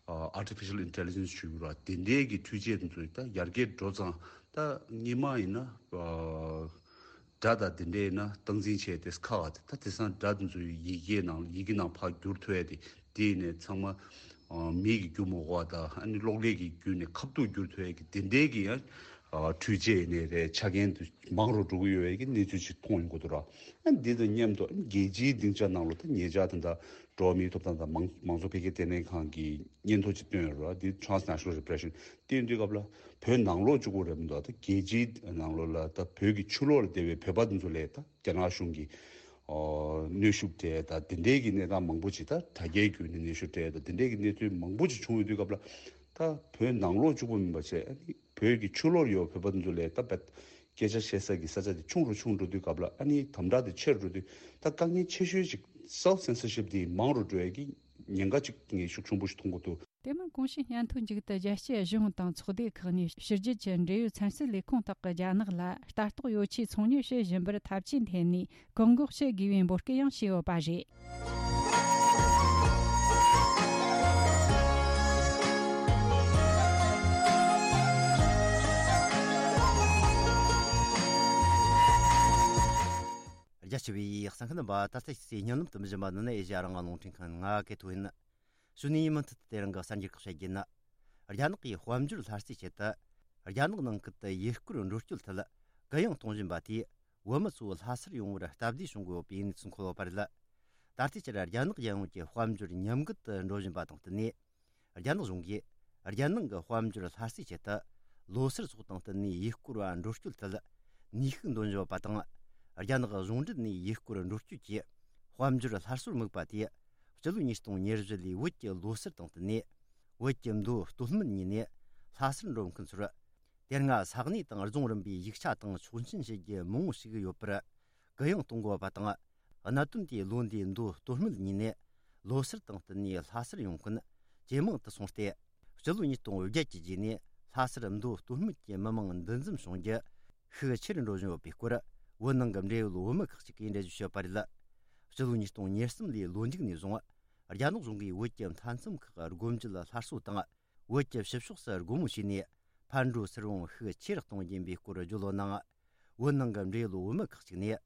ཨ་artificial intelligence ཞུ་དགོས་ར། དེ་འདྲའི་གི་འཕྲུལ་ཆས་དེ་ཚོ་ད་ཡར་རྒྱས་འགྲོ་ཙང་ད་སྔོན་མ་ཡིན་ན་ཨ་སྒྲ་དང་དེ་འདྲའི་ཡིན་ན་སྟངས་འཛིན་བྱས་ཏེ་ཁག་ག་དེ། ད་དེང་སང་སྒྲ་དེ་ཚོ་ཡི་གེའི་ནང་ཡི་གེ་ནང་ཕར་བསྒྱུར་ཐུབ་ཡ་དེ། དེ་ཡིན་ནས་ཚང་མ་ཨ་མི་གིས་བསྒྱུར་མི་དགོས་པ་དང་། ཨ་ནི་གློག་ཀླད་ཀྱིས་བསྒྱུར་ནས་ཁ་ཐུག་བསྒྱུར་ཐུབ་ཡ་གི་དེ་འདྲའི་གི་ཡང་ཨ་འཕྲུལ་ཆས་ཡིན་ནའི་རེད། ཆ་རྐྱེན་དེ་མང་རུ་འགྲོ་གི་ཡོད་པའི་གི་གནས་ཚུལ་ཅིག་མཐོང་ཡོང་གི་འདུག་ར། ཨ་ནི་འདི་དང་མཉམ་དུ་ཨ་ནི་རྒྱལ་སྤྱིའི་སྡིངས་ཆ་ནང་ལོགས་ད་ཉེ་ཆར་དེ་འདྲ་འགྲོ་བ་མིའི་ཐོབ་ཐང་དང་མང་མང་གཙོ་འཕེལ་རྒྱས་ལྟེ་གནས་ཁང་གིས་སྙན་ཐོ་ཅིག་བཏོན་ཡོད་རེད་བ། འདི་transnational repression། དེ་ཡིན་དུས་སྐབས་ལ་བོད་ནང་ལོགས་གཅིག་པོ་རེད་མི་འདུག་ད་རྒྱལ་སྤྱིའི་ནང་ལོགས་ལ་ད་བོད་ཀྱི་ཕྱི་ལོགས་ལ་བསྡད་པའི་བོད་པ་དེ་ཚོ་ལ་ད་རྒྱ་ནག་གཞུང་གིས་ཨོ་གནོན་ཤུགས་སྤྲད་ད་དེ་འདྲའི་གི་གནས་སྟངས་མང་པོ་ཅིག་ད་དྲ་རྒྱའི་བརྒྱུད་ནས་གནོན་ཤུགས་སྤྲད་ད་དེ་འདྲའི་གི་གནས་ཚུལ་མང་པོ་ཅིག་བྱུང་ཡོད་དུས་སྐབས་ལ། ད་བོད་ནང་ལོགས་གཅིག་པོ་མིན་པ་བྱས། ཨ་ནི་བོད་ཀྱི་ཕྱི་ལོགས་ཡོད་བོད་པ་དེ་ཚོ་ལ་ད་བད་སྐད་ཆ་བཤད་ས་གི་ས་ཆ་དེ་ཆུང་རུ་ཆུང་འགྲོ་དུས་སྐབས་ལ། ཨ་ནི་དམ་དྲག་དེ་ཆེ་རུ་འགྲོ་དུས་ད་དཀའ་ངལ་ཆེ་ཤོས་ཅིག self censorship དེ་མང་རུ་འགྲོ་ཡ་གི་ཉེན་ཁ་ཅིག་ངས་ཤུགས་ཆེན་པོ་ཞིག་མཐོང་གི་འདུག་དེ་མིན་གོང་ཞུས་སྙན་ཐོའི་མཇུག་ཏུ་རྒྱལ་སྤྱིའི་གཞུང་དང་ཚོགས་སྡེ་ཁག་ནས་ཕྱི་རྒྱལ་གྱི་འབྲེལ་ཡོད་ཚན་རྩལ་ལས་ཁུངས་དག་གིས་རྒྱ་ནག་ལ་ལྟ་རྟོག་ཡོ་ཆས་ཚོང་གཉེར་བྱེད་བཞིན་པར་ཐབས་ཇུས་འཐེན་ནས་བཀག་འགོག་བྱེད་དགོས་པའི་འབོད་སྐུལ་ཡང་བྱས་ཡོད་པ་རེད། རྒྱ་ཆེ་བའི་གསན་མཁན་རྣམ་པ། ད་ལྟ་ཞིག་སའི་སྙན་ལམ་དུ་མི་བཞིན་པ་ནི་ནི་ཨེ་ཤེ་ཡ་རང་དབང་རླུང་འཕྲིན་ཁང་ང་གི་ཐོ་ཡིན། གཞུག་ནས་མུ་མཐུད་དུ་དེ་རིང་གི་གསར་འགྱུར་ཁག་བཤད་རྒྱུ་ཡིན། རྒྱ་ནག་གིས་དཔལ་འབྱོར་སླར་གསོའི་ཆེད་དུ། རྒྱ་ནག་ནང་ཁུལ་དུ་ཡུལ་སྐོར་འགྲོ་སྐྱོད་ཐད་གུ་ཡངས་གཏོང་བཞིན་པ་དེས། བོད་མི་ཚོ་ལྷ་སར་ཡོང་བར་སྟབས་བདེ་བྱུང་དགོས་པའི་གནས་ཚུལ་འཁོད་ཡོད་པ་རེད། ད་ལྟའི་ཆར་རྒྱ་ནག་རྒྱལ་ཡོངས་ཀྱི་དཔལ་འབྱོར་ཉམས་རྒུད་དུ་འགྲོ་བཞིན་པ་དང་བསྟུན་ནས། རྒྱ་ནག་གཞུང་གིས་རྒྱལ་ནང་གི་དཔལ་འབྱོར་སླར་གསོའི་ཆེད་དུ། ལོ་སར་སོགས་དང་བསྟུན་ནས་ཡུལ་སྐོར་བ་འགྲོ་སྐྱོད་ཐད་ནུས་ཤུགས་འདོན་བཞིན་ཡོད་པ་དང་། རྒྱ་ནག་གཞུང་འབྲེལ་ནས་ཡུལ་སྐོར་འགྲོ་སྐྱོད་ཀྱི་དཔལ་འབྱོར་སླར་གསོར་དམིགས་པ་དེས། སྤྱི་ལོ་ཉིས་སྟོང་ཉེར་བཞི་ལོའི་བོད་ཀྱི་ལོ་སར་དང་བསྟུན་ནས། བོད་ཀྱི་མདོ་སྟོད་སྨད་གཉིས་ནས་ལྷ་སར་འགྲོ་མཁན་ཚོར། དེ་སྔ་ས་གནས་དང་རྫོང་རིམ་པའི་ཡིག་ཆ་དང་ཆོག་མཆན་བྱེད་རྒྱུ་མང་བོ་ཞིག་ཡོད་པར་གུ་ཡངས་གཏོང་དགོས་པ་དང་། གནད་དོན་དེས་ལོ་འདིའི་མདོ་སྟོད་སྨད་གཉིས་ནས་ལོ་སར་དང་བསྟུན་ནས་ལྷ་སར་ཡོང་མཁན་ཇེ་མང་དུ་སོང་སྟེ། སྤྱི་ལོ་ཉིས་སྟོང་བརྒྱད་ཀྱི་རྗེས་ནས་ལྷ་སར་མདོ་སྟོད་སྨད་ཀྱི་མི་མང་འདུ་འཛོམས་བྱུང་རྒྱུ་ཤུགས་ཆེ་རུ་འགྲོ་བཞིན་ཡོད་པའི་སྐོར། བོད་ནང་གི་འབྲེལ་ཡོད་བོད་མི་ཁག་ཅིག་གིས་འགྲེལ་བརྗོད་བྱས་པ་རེད། སྤྱི་ལོ་ཉིས་སྟོང་ཉེར་གསུམ་ལོའི་ལོ་མཇུག་ནས་བཟུང་། རྒྱ་ནག་གཞུང་གིས་བོད་ཀྱི་མཐའ་མཚམས་ཁག་སྒོ་འབྱེད་སླར་གསོ་དང་། བོད་ཀྱི་ཕྱི་ཕྱོགས་སུ་སྒོ་མོ་ཕྱེས་ནས། ཕར་འགྲོ་ཚུར་འོང་ཤུགས་ཆེ་རུ་གཏོང་རྒྱུ་ཡིན་པའི་སྐོར་བརྗོད་ཡོད་ནའང་། བོད་ནང་གི་འབྲེལ་ཡོད་བོད་མི་ཁག་ཅིག་ནས།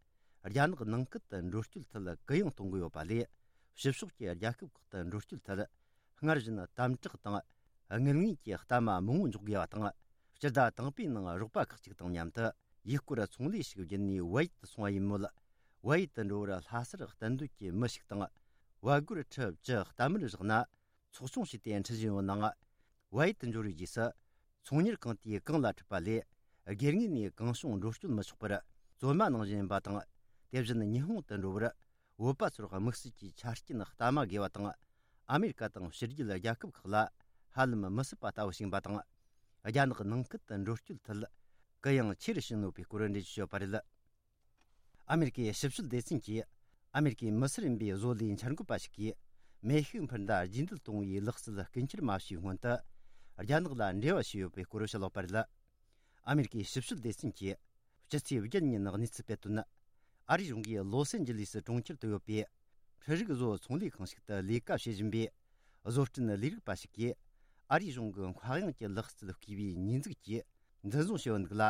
རྒྱ་ནག་ནང་ཁུལ་དུ་འགྲོ་སྐྱོད་ཐད་གུ་ཡངས་གཏོང་གི་ཡོད་པ་ལས། ཕྱི་ཕྱོགས་ཀྱི་རྒྱལ་ཁབ་ཁག་ཏུ་འགྲོ་སྐྱོད་ཐད། སྔར་བཞིན་དམ་དྲག་དང་། དངུལ་དངོས་ཀྱི་གཏའ་མ་མང་བོ་འཇོག་དགོས་པ་དང་། སྤྱི་ཟླ་དང་པོའི་ནང་རོགས་པ་ཁག་ཅིག་དང་མཉམ་དུ། ཡུལ་སྐོར་ཚོང་ལས་ཤིག་བརྒྱུད་ནས་བལ་ཡུལ་དུ་སོང་བ་ཡིན་མོད། བལ་ཡུལ་དུ་འགྲོ་བར་ལྷ་སར་གཏན་སྡོད་ཀྱི་མི་ཞིག་དང་། བལ་སྒོར་ཁྲི་བཅུ་གཏའ་མར་བཞག་ན། ཚོགས་ཆུང་ཞིག་དེ་འཁྲིད་བཞིན་ཡོད་ནའང་། བལ་ཡུལ་དུ་འབྱོར་བའི་རྗེས་སུ། ཚོང་གཉེར་ཁང་དེས་གང་ལ་འཁྲིད་པ་ལས། སྒེར་ངོས་ནས་གང་བྱུང་འགྲོ་སྐྱོད་མི་ཆོག་པར། བཙོན་མ་ནང་བཞིན་ཡིན་པ་དང་། དེ་བཞིན་ཉི་ཧོང་དུ་འགྲོ་བར། བོད་པ་ཚོར་དམིགས་བསལ་གྱི་ཆ་རྐྱེན་གཏའ་མ་དགོས་པ་དང་། ཨ་མེ་རི་ཀ་དང་ཕྱི་རྒྱལ་རྒྱལ་ཁབ་ཁག་ལ། ཧ་ལམ་མི་སྲིད་པ་ལྟ་བུ་ཞིག་ཡིན་པ་དང་། རྒྱ་ནག་ནང་ཁུལ་དུ་འགྲོ་སྐྱོད་ཐད། གུ་ཡངས་ཆེ་རུ་ཕྱིན་ཡོད་པའི་སྐོར་འགྲེལ་བརྗོད་བྱས་ཡོད་པ་རེད། ཨ་མེ་རི་ཀའི་ཞིབ་དཔྱོད་སྡེ་ཚན་གྱིས། ཨ་མེ་རི་ཀའི་མི་སེར་ཡིན་པའི་བཟོ་ལས་འཆར་འགོད་པ་ཞིག་གིས། མེ་ཤུགས་འཕུར་མདའ་རྗེས་འདེད་གཏོང་བའི་ལག་རྩལ་སྐུལ་འཁྱེར་མ་བྱས་སྔོན་དུ། རྒྱ་ནག་ལ་འབྲེལ་བ་བྱས་ཡོད་པའི་སྐོར་བཤད་ཡོད་པ་རེད། ཨ་མེ་རི་ཀའི་ཞིབ་དཔྱོད་སྡེ་ཚན་གྱིས། སྤྱི་ཚེས་བརྒྱད་ཉིན་གནས་ཚུལ་སྤེལ་དོན། ཨ་རིའི་གཞུང་གིས་ལོ་སན་ཇི་ལིས་གྲོང་ཁྱེར་དུ་ཡོད་པའི། འཕྲུལ་རིག་བཟོ་ཚོང་ལས་ཁང་ཞིག་ཏུ་ལས་ཀ་བྱེད་བཞིན་པའི། བཟོ་སྐྲུན་ལས་རིག་པ་ཞིག་གིས། ཨ་རིའི་གཞུང་གི་མཁའ་དབྱིངས་ཀྱི་ལག་རྩལ་བརྐུས་པའི་ཉེས་འཛུགས་ཀྱིས། འཛིན་བཟུང་བྱས་ཡོད་འདུག་ལ།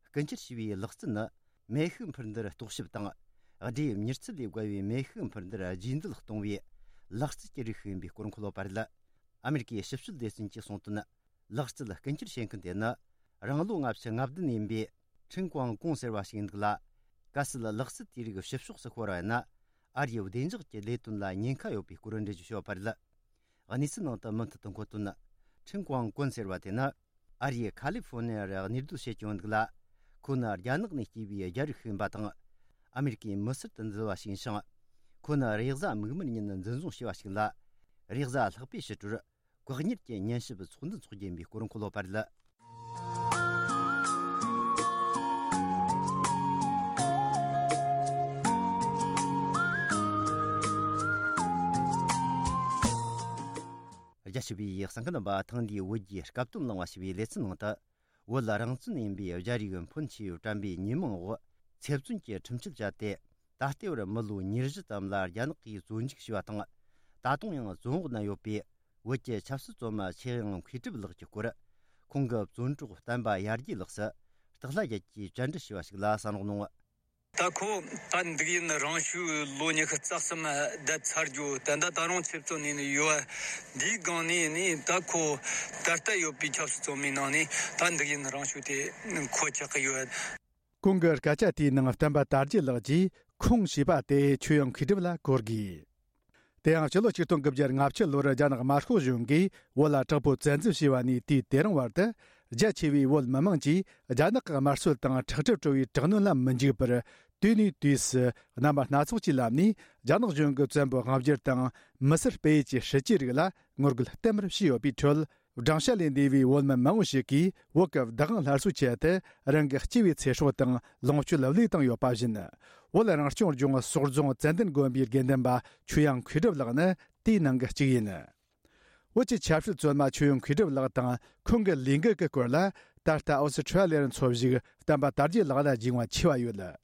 རྐུ་འཁྱེར་བྱས་པའི་ལག་རྩལ་ནི། མེ་ཤུགས་འཕུར་མདའ་རྟོག་ཞིབ་དང་། སྦྲེལ་མྱུར་ཚད་ལས་བརྒལ་བའི་མེ་ཤུགས་འཕུར་མདའ་རྗེས་འདེད་གཏོང་བའི། ལག་རྩལ་གྱི་རིགས་ཤིག་ཡིན་པའི་སྐོར་འཁོད་ཡོད་པ་རེད། ཨ་མེ་རི་ཀའི་ཞིབ་དཔྱོད་སྡེ་ཚན་གྱིས་གསུངས་དོན། ལག་རྩལ་རྐུ་འཁྱེར་བྱེད་མཁན་དེ་ནི། རང་ལོ་ལྔ་བཅུ་ང་བདུན་ཡིན་པའི། ཁྲིན་ཀོང་ཀོང་ཟེར་བ་ཞིག་ཡིན་འདུག་ལ། གལ་སྲིད་ལག་རྩལ་དེའི་རིགས་ཕྱི་ཕྱོགས་སུ་ཤོར་བ་ཡིན་ན། ཨ་རིའི་བདེ་འཇགས་ཀྱི་ལས་དོན་ལ་ཉེན་ཁ་ཡོད་པའི་སྐོར་འགྲེལ་བརྗོད་བྱས་ཡོད་པ་རེད། གནས་ཚུལ་ནང་དུ་མུ་མཐུད་དུ་འཁོད་དོན། ཁྲིན་ཀོང་ཀོན་ཟེར་བ་དེ་ནི། ཨ་རིའི་ཁ་ལི་ཧྥོ་ནི་ཡར་གནས་སྡོད་བྱེད་ཀྱི་ཡོད་འདུག་ལ། ཁོ་ནི་རྒྱ་ནག་ནས་སྐྱེས་པའི་རྒྱ་རིགས་ཤིག་ཡིན་པ་དང་། ཨ་མེ་རི་ཀའི་མི་སེར་དུ་འཛུལ་བ་ཞིག་ཡིན་ཞིང་། ཁོ་ནི་རེས་གཟའ་མིག་དམར་ཉིན་འཛིན་བཟུང་བྱས་པ་ཞིག་ལ། རེས་གཟའ་ལྷག་པའི་ཕྱི་དྲོར། བཀག་ཉར་གྱི་ཉན་ཞིབ་ཚོགས་འདུ་འཚོགས་རྒྱུ་ཡིན་པའི་སྐོར་འཁོད་ཡོད་པ་རེད། རྒྱ་ཆེ་བའི་གསན་མཁན་རྣམ་པ། ཐེངས་འདིའི་བོད་རྒྱའི་སྐབས་དོན་གླེང་བ་ཞེས་པའི་ལེ་ཚན་ནང་དུ། བོད་རང་བཙན་ཡིན་པའི་རྒྱ་རིགས་ཕོན་ཆེ་བའི་དྲན་པའི་ཉིན་མོའི་འོག་ཚེ་བཙོན་གྱི་ཁྲིམས་གཅོད་བྱས་ཏེ། ད་ལྟའི་བར་མི་ལོ་ཉེར་བཞི་ཙམ་ལ་རྒྱ་ནག་གིས་བཙོན་འཇུག་བྱས་པ་དང་། ད་དུང་ཡང་བཙོན་འོག་ན་ཡོད་པའི་བོད་ཀྱི་ཆབ་སྲིད་བཙོན་མ་ཆོས་དབྱིངས་མཁས་གྲུབ་ལགས་ཀྱི་སྐོར། ཁོང་གི་བཙོན་གྲོགས་བསྟན་པ་ཡར་རྒྱས་ལགས་སུ་སྟག་ལྷ་རྒྱལ་གྱིས་བཅར་འདྲི་ཞུས་པ་ཞིག་ལ་གསན་རོགས་གནང་། ད་ཁོ་ད་འདུག་ཡིན། རང་ཤུགས་ལོ་ཉི་ཤུ་རྩ་གསུམ་བསྡད་ཚར་རྒྱུ། ད་ལྟ་ད་རུང་ཚེ་བཙོན་ནས་ནི་ཡོད། འདིའི་སྒང་ནས་ནི་ད་ཁོ་ད་ལྟ་ཡོད་པའི་ཆབ་སྲིད་བཙོན་མའི་ནང་ནས་ད་འདུག་ཡིན། རང་ཤུགས་དེ་མཁོ་ཆགས་ཀྱི་ཡོད། ཁོང་གི་སྐད་ཆ་དེའི་ནང་བསྟན་པ་དར་རྒྱས་ལགས་ཀྱིས་ཁོང་ཞེས་པ་དེ་ཆོས་དབྱིངས་མཁས་གྲུབ་ལ་གོ་དགོས། དེ་ཡང་ཕྱི་ལོ་ཆིག་སྟོང་དགུ་བརྒྱ་ལྔ་བཅུ་ལོར་རྒྱ་ནག་དམར་ཤོག་གཞུང་གིས་བོད་ལ་དྲག་པོའི་བཙན་འཛུལ་བྱས་པ་ནས་དུས་དེ་རིང་བར་དུ། རྒྱ་ཆེ་བའི་བོད་མི་མང་གིས་རྒྱ་ནག་གི་དམར་གསོད་དང་ཁྲག་དྲི་བྲོ་བའི་དྲག་གནོན་ལ་མི་འཇིགས་པར། དུས་ནས་དུས་སུ་རྣམ་པ་སྣ་ཚོགས་ཀྱི་ལམ་ནས་རྒྱ་ནག་གཞུང་གི་བཙན་པོའི་དབང་སྒྱུར་དང་མི་སེར་སྤེལ་ཡུལ་གྱི་སྲིད་ཇུས་རིགས་ལ་ངོ་རྒོལ་བསྟན་པར་བྱས་ཡོད་པའི་ཁྲོད། སྦྲང་ཤ་ལས་འདས་པའི་བོད་མི་མང་བོ་ཞིག་གིས་བོད་ཀྱི་བདག་དབང་སླར་གསོའི་ཆེད་དུ་རང་གི་སྐྱེས་པའི་ཚེ་སྲོག་དང་ལོངས་སྤྱོད་བློས་བཏང་ཡོད་པ་བཞིན། བོད་རང་སྐྱོང་ལྗོངས་སོག་རྫོང་ཙན་དན་དགོན་པའི་དགེ་འདུན་པ་ཆོས་དབྱངས་མཁས་གྲུབ་ལགས་ནི་དེའི་ནང་གི་གཅིག་ཡིན། བོད་ཀྱི་ཆབ་སྲིད་བཙོན་མ་ཆོས་དབྱངས་མཁས་གྲུབ་ལགས་དང་ཁོང་གི་ལས་འགུལ་གྱི་སྐོར་ལ། ད་ལྟ་ཨོ་སི་ཁྲ་ལི་ཡར་འཚོ་བཞུགས་བསྟན་པ་དར་རྒྱས་ལགས་ལ་རྒྱུས་མངའ་ཆེ་བ་ཡོད།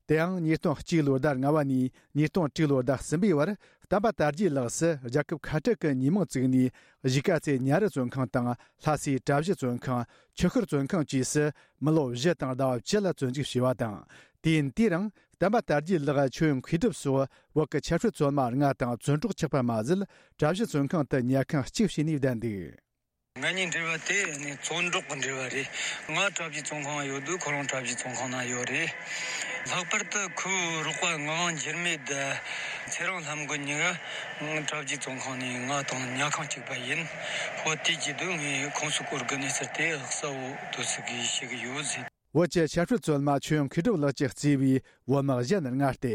དེའང་ཉིས་སྟོང་གཅིག་ལོའི་ཟླ་ལྔ་བ་ནས་ཉིས་སྟོང་དྲུག་ལོའི་ཟླ་གསུམ་པའི་བར། བསྟན་པ་དར་རྒྱས་ལགས་སུ་རྒྱལ་ཁབ་ཁ་བྲལ་གྱི་ཉེས་མིང་བཙུགས་ནས། གཞིས་ཀ་རྩེ་ཉ་རི་བཙོན་ཁང་དང་ལྷ་སའི་གྲྭ་བཞི་བཙོན་ཁང་། ཆུ་ཤུར་བཙོན་ཁང་བཅས་སུ་མི་ལོ་བཞི་དང་ཟླ་བ་བཅུ་ལ་བཙོན་འཇུག་བྱས་པ་དང་། དུས་ཡུན་དེའི་རིང་བསྟན་པ་དར་རྒྱས་ལགས། ཆོས་དབྱིངས་མཁས་གྲུབ་སོགས་བོད་ཀྱི་ཆབ་སྲིད་བཙོན་མ་ལྔ་དང་བཙོན་གྲོགས་ཆགས་པ་མ་ཟད། གྲྭ་བཞི་བཙོན་ཁང་དུ་ཉལ་ཁང་གཅིག་བྱས་ནས་བསྡད་འདུག། ང་གཉིས་འབྲེལ་བ་དེ་ནི་བཙོན་གྲོགས་ཀྱི་འབྲེལ་བ་རེད། ང་གྲྭ་བཞི་བཙོན་ཁང་ཡོད་དུས་ཁོ་རང་གྲྭ་བཞི་བཙོན་ཁང་ན་ཡོད་རེད། ལྷག་པར་དུ་ཁོའི་རོགས་པ་ངག་དབང་འགྱུར་མེད་དང་ཚེ་རིང་ལྷམ་མགོན་གཉིས་ཀ་གྲྭ་བཞི་བཙོན་ཁང་ནས་ང་དང་ཉལ་ཁང་གཅིག་པ་ཡིན། ཧོ་དེ་བྱེད་དུས་ངས་ཁོང་ཚོའི་སྐོར་གི་གནས་ཚུལ་དེ་གསལ་བོ་དུ་ཟིག་གིས་ཤེས་ཀྱི་ཡོད་ཟེར། བོད་ཀྱི་ཆབ་སྲིད་བཙོན་མ་ཆོས་དབྱིངས་མཁས་གྲུབ་ལགས་ཀྱིས་གཙོས་པའི་བོད་མི་གཞན་ལྔ་སྟེ།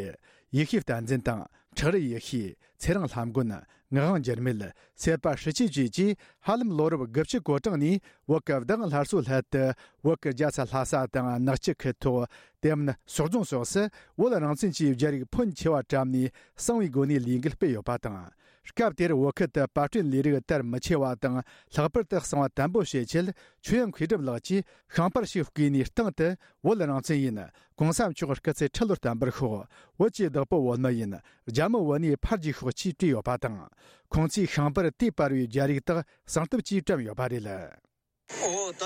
ཡེ་ཤེས་བསྟན་འཛིན་དང་། ཁྲག་རི་ཡེ་ཤེས། ཚེ་རིང་ལྷམ་མགོན། ངག་དབང་འགྱུར་མེད། སེར་པ་ཧྲི་ཅི་བཅས་ཀྱིས་ཧ་ལམ་ལོ་རབས་དགུ་བཅུ་གོ་གྲངས་ནས་བོད་ཀྱི་བདག་དབང་སླར་གསོའི་སླད་དུ། བོད་ཀྱི་རྒྱལ་ས་ལྷ་ས་དང་ནག་ཆུ་ཁུལ་ཐོག་དེ་མིན་སོག་རྫོང་སོགས་སུ་བོད་རང་བཙན་གྱི་རྒྱ་རིགས་ཕོན་ཆེ་བ་བཀྲམ་ནས་གསང་བའི་སྒོ་ནས་ལས་འགུལ་སྤེལ་ཡོད་པ་དང་། སྐབས་དེར་བོད་ཁུལ་དུ་པར་སྐྲུན་ལས་རིགས་དར་མི་ཆེ་བ་དང་། ལྷག་པར་དུ་གསང་བ་དམ་པོ་བྱེད་ཆེད་ཆོས་དབྱིངས་མཁས་གྲུབ་ལགས་ཀྱིས་ཤིང་པར་ཞིག་བརྐོས་ནས་སྟེང་དུ། བོད་རང་བཙན་ཡིན། གོང་ས་མཆོག་སྐུ་ཚེ་ཁྲི་ལོར་བརྟན་པར་ཤོག། བོད་ཀྱི་བདག་པོ་བོད་མི་ཡིན། རྒྱ་མི་བོད་ནས་ཕར་རྒྱུགས་ཤོག་ཅེས་བྲིས་ཡོད་པ་དང་། ཁོང་ཚོས་ཤིང་པར་དེ་པར་བའི་རྒྱ་རིགས་དག་གསང་ཐབས་ཀྱིས་བཀྲམ་ཡོད་པ་རེད། འོ་ད་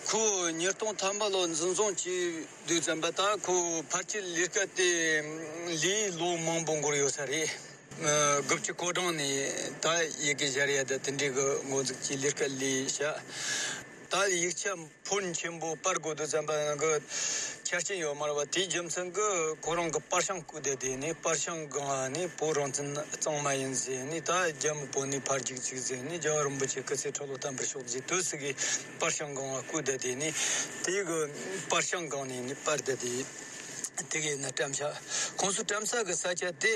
ཁོ་ཉིས་སྟོང་ཐམ་པ་ལོ་འཛིན་བཟུང་བྱས་དུས་ཙམ་པ་ད་ཁོ་ཕལ་ཆེར་ལས་ཀ་དེ་ལས་ལོ་མང་པོ་འགོར་ཡོད་ས་རེད། དགུ་བཅུ་གོ་གྲངས་ནས་ད་ཡི་གེ་སྦྱར་ཡ་ད་དེ་འདྲའི་གི་འགོ་འཛུགས་ཀྱིས་ལས་ཀ་ལས་བྱ། ད་ཡིག་ཆ་ཕོན་ཆེན་པོ་པར་དགོས་དུས་ཙམ་པ་ནང་གི་ཆ་རྐྱེན་ཡོད་མ་རེད་པ། དེའི་རྒྱུ་མཚན་གྱིས་ཁོ་རང་གི་པར་ཤིང་བརྐུས་བསྡད་དེ་ནས། པར་ཤིང་སྒང་ནས་བོད་རང་བཙན་གཙང་མ་ཡིན་ཟེར་ནས། ད་རྒྱ་མི་བོད་ནས་ཕར་རྒྱུགས་ཅིག་ཟེར་ནས། རྒྱལ་བ་རིན་པོ་ཆེ་སྐུ་ཚེ་ཁྲི་ལོ་བརྟན་པར་ཤོག་ཟེར་དུས་སུ་གི་པར་ཤིང་སྒང་བརྐུས་བསྡད་དེ་ནས། དེ་གི་པར་ཤིང་སྒང་ནས་ནི་པར་བསྡད་དེ། དེ་གི་ནི་བཀྲམ་བྱ། ཁོང་ཚོ་བཀྲམ་ས་གི་ས་ཆ་དེ་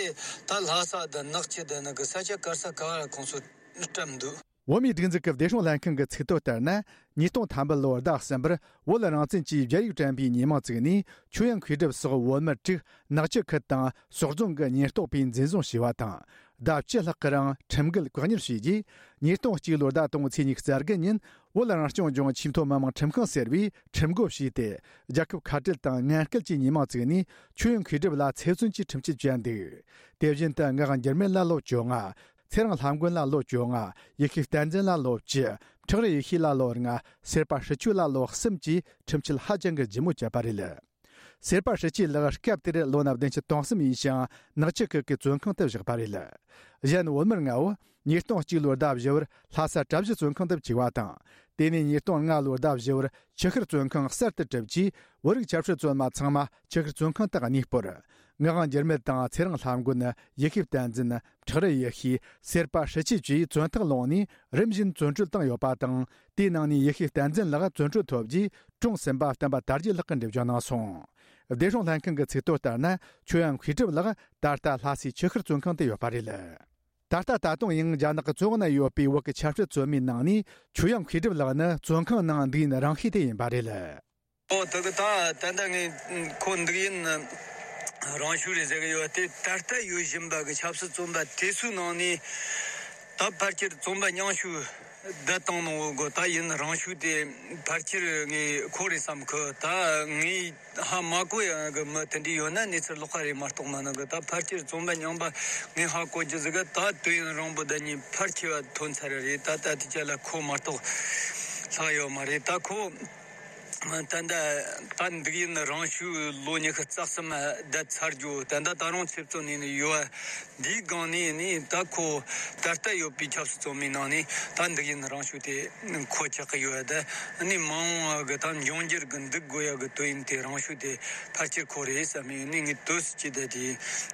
ད་ལྷ་ས་དང་ནག་ཆུ་དང་ནི་གི་ས་ཆ་ག་ས་ག་ལ་ཁོང་ཚོ་བཀྲམ་འདུག། བོད་མིའི་སྒྲིག་འཛུགས་ཀྱི་བདེ་སྲུང་ལྷན་ཁང་གི་ཚིག་ཐོ་ལྟར་ན། ཉིས་སྟོང་ཐམ་པ་ལོའི་ཟླ་གསུམ་པར་བོད་རང་བཙན་གྱི་རྒྱ་ཡིག་བཀྲམ་པའི་ཉེས་མིང་བཙུགས་ནས། ཆོས་དབྱིངས་མཁས་གྲུབ་སོགས་བོད་མི་དྲུག་ནག་ཆུ་ཁུལ་དང་སོག་རྫོང་གི་ཉེན་རྟོག་པས་འཛིན་བཟུང་བྱས་པ་དང་། ཟླ་བཅུ་ལྷག་གི་རིང་ཁྲིམས་འགལ་བཀག་ཉར་བྱས་རྗེས། ཉིས་སྟོང་གཅིག་ལོའི་ཟླ་དང་པོའི་ཚེས་ཉི་ཤུ་རྩ་དགུ་ཉིན་བོད་རང་སྐྱོང་ལྗོངས་ཆེས་མཐོ་མི་དམངས་ཁྲིམས་ཁང་ཟེར་བས་ཁྲིམས་བགོ་བྱས་ཏེ། རྒྱལ་ཁབ་ཁ་བྲལ་དང་ངན་སྐུལ་གྱི་ཉེས་མིང་བཙུགས་ནས། ཆོས་དབྱིངས་མཁས་གྲུབ་ལ་ཚེ་བཙོན་གྱི་ཁྲིམས་ཆད་བཅད་འདུག། དེ་བཞིན་དུ་ངག་དབང་འགྱུར་མེད་ལ་ལོ་བཅོ་ལྔ། ཚེ་རིང་ལྷམ་མགོན་ལ་ལོ་བཅོ་ལྔ། ཡེ་ཤེས་བསྟན་འཛིན་ལ་ལོ་བཅུ། ཁྲག་རི་ཡེ་ཤེས་ལ་ལོ་ལྔ། སེར་པ་ཧྲི་ཆོས་ལ་ལོ་གསུམ་གྱིས་ཁྲིམས་ཆད་ཧ་ཅང་གི་ལྗིད་མོ་བཅད་པ་རེད། སེར་པ་ཧྲི་ཆོས་ལགས་སྐབས་དེར་ལོ་ན་བདུན་ཅུ་དོན་གསུམ་ཡིན་ཞིང་། ནག་ཆུ་ཁུལ་གྱི་བཙོན་ཁང་དུ་བཞག་པ་རེད། གཞན་བོད་མི་ལྔ་བོ་ཉིས་སྟོང་གཅིག་ལོའི་ཟླ་བཞི་པར་ལྷ་ས་གྲྭ་བཞི་བཙོན་ཁང་དུ་བཅུག་པ་དང་། དེ་ནས་ཉིས་སྟོང་ལྔ་ལོའི་ཟླ་བཞི་པར་ཆུ་ཤུར་བཙོན་ཁང་གསར་དུ་གྲུབ་རྗེས། བོད་རིགས་ཆབ་སྲིད་བཙོན་མ་ཚང་མ་ཆུ་ཤུར་བཙོན་ཁང་དུ་གནས་སྤོར། ངག་དབང་འགྱུར་མེད་དང་། ཚེ་རིང་ལྷམ་མགོན། ཡེ་ཤེས་བསྟན་འཛིན། ཁྲག་རི་ཡེ་ཤེས། སེར་པ་ཧྲི་ཆོས་བཅས་བཙོན་ཐག་བླངས་ནས་རིམ་བཞིན་བཙོན་གྲོལ་བཏང་ཡོད་པ་དང་། དེའི་ནང་ནས་ཡེ་ཤེས་བསྟན་འཛིན་ལགས་བཙོན་གྲོལ་ཐོབ་རྗེས། གྲོངས་ཟིན་པ་བསྟན་པ་དར་རྒྱས་ལགས་ཀྱིས་འགྲེལ་བརྗོད་གནང་སོང་། བདེ་སྲུང་ལྷན་ཁང་གི་ཚིག་ཐོ་ལྟར་ན། ཆོས་དབྱིངས་མཁས་གྲུབ་ལགས་ད་ལྟ་ལྷ་སའི་ཆུ་ཤུར་བཙོན་ཁང་དུ་ཡོད་པ་རེད། ད་ལྟ་ད་དུང་ཡང་རྒྱ་ནག་གི་བཙོན་འོག་ན་ཡོད་པའི་བོད་ཀྱི་ཆབ་སྲིད་བཙོན་མའི་ནང་ནས་ཆོས་དབྱིངས་མཁས་གྲུབ་ལགས་ནི་བཙོན་ཁང་ནང་འདུག་ཡུན་རིང་ཤོས་དེ་ཡིན་པ་རེད། ཨོ་དེ་གི་ད་ད་ལྟ་ངས་ཁོ་འདུག་ཡུན་རིང་ཤོས་རེད་ཟེར་གི་ཡོད་དེ། ད་ལྟ་ཡོད་བཞིན་པ་གི་ཆབ་སྲིད་བཙོན་པ་དེ་ཚོའི་ནང་ནས་ ད་ཕལ་ཆེར་བཙོན་པ་མཉམ་ཞུགས་བསྡད་བཏང་ནོ་གི་ད་ཡུན་རིང་ཤོས་དེ་ཕལ་ཆེར་ངས་ཁོ་རེད་བསམ་གི། ད་ངས་ཧ་མ་གོ་ཡ་གི་མི་དེ་འདྲ་ཡོད་ན་གནས་ཚུལ་ལོགས་ཀ་རེད་མ་གཏོགས་མིན་ནོ་གི། ད་ཕལ་ཆེར་བཙོན་པ་མཉམ་པ་ངས་ཧ་གོ་རྒྱུ་ཟིག་གི། ད་དུས་ཡུན་རིང་པོ་ད་ཉིན་ཕལ་ཆེ་བ་ཐོན་ཚར་རེད། ད་ད་དེ་ཅག་ལ་ཁོ་མ་གཏོགས་ལྷག་ཡོད་མ་རེད། ད་ཁོ་ད་ལྟ་ད་འདུག་ཡུན་རིང་ཤོས་ལོ་ཉི་ཤུ་རྩ་གསུམ་བསྡད་ཚར་རྒྱུ། ད་ལྟ་ད་རུང་ཚེ་བཙོན་ནས་ནི་ཡོད། འདིའི་སྒང་ནས་ནི་ད་ཁོ་ད་ལྟ་ཡོད་པའི་ཆབ་སྲིད་བཙོན་མའི་ནང་ནས་ད་འདུག་ཡུན་རིང་ཤོས་དེ་ཁོ་ཆགས་ཀྱི་ཡོད། ད་ནི་མ་འོངས་པ་གི་ད་འབྱུང་འགྱུར་གི་འདུག་དགོས་ཡ་གི་དུས་ཡུན་དེ་རིང་ཤོས་དེ་ཕལ་ཆེར་ཁོ་རེད་བསམ་ཡོད། ནི་ངས་དུས་སུ་ཅི་བསྡད་དེ་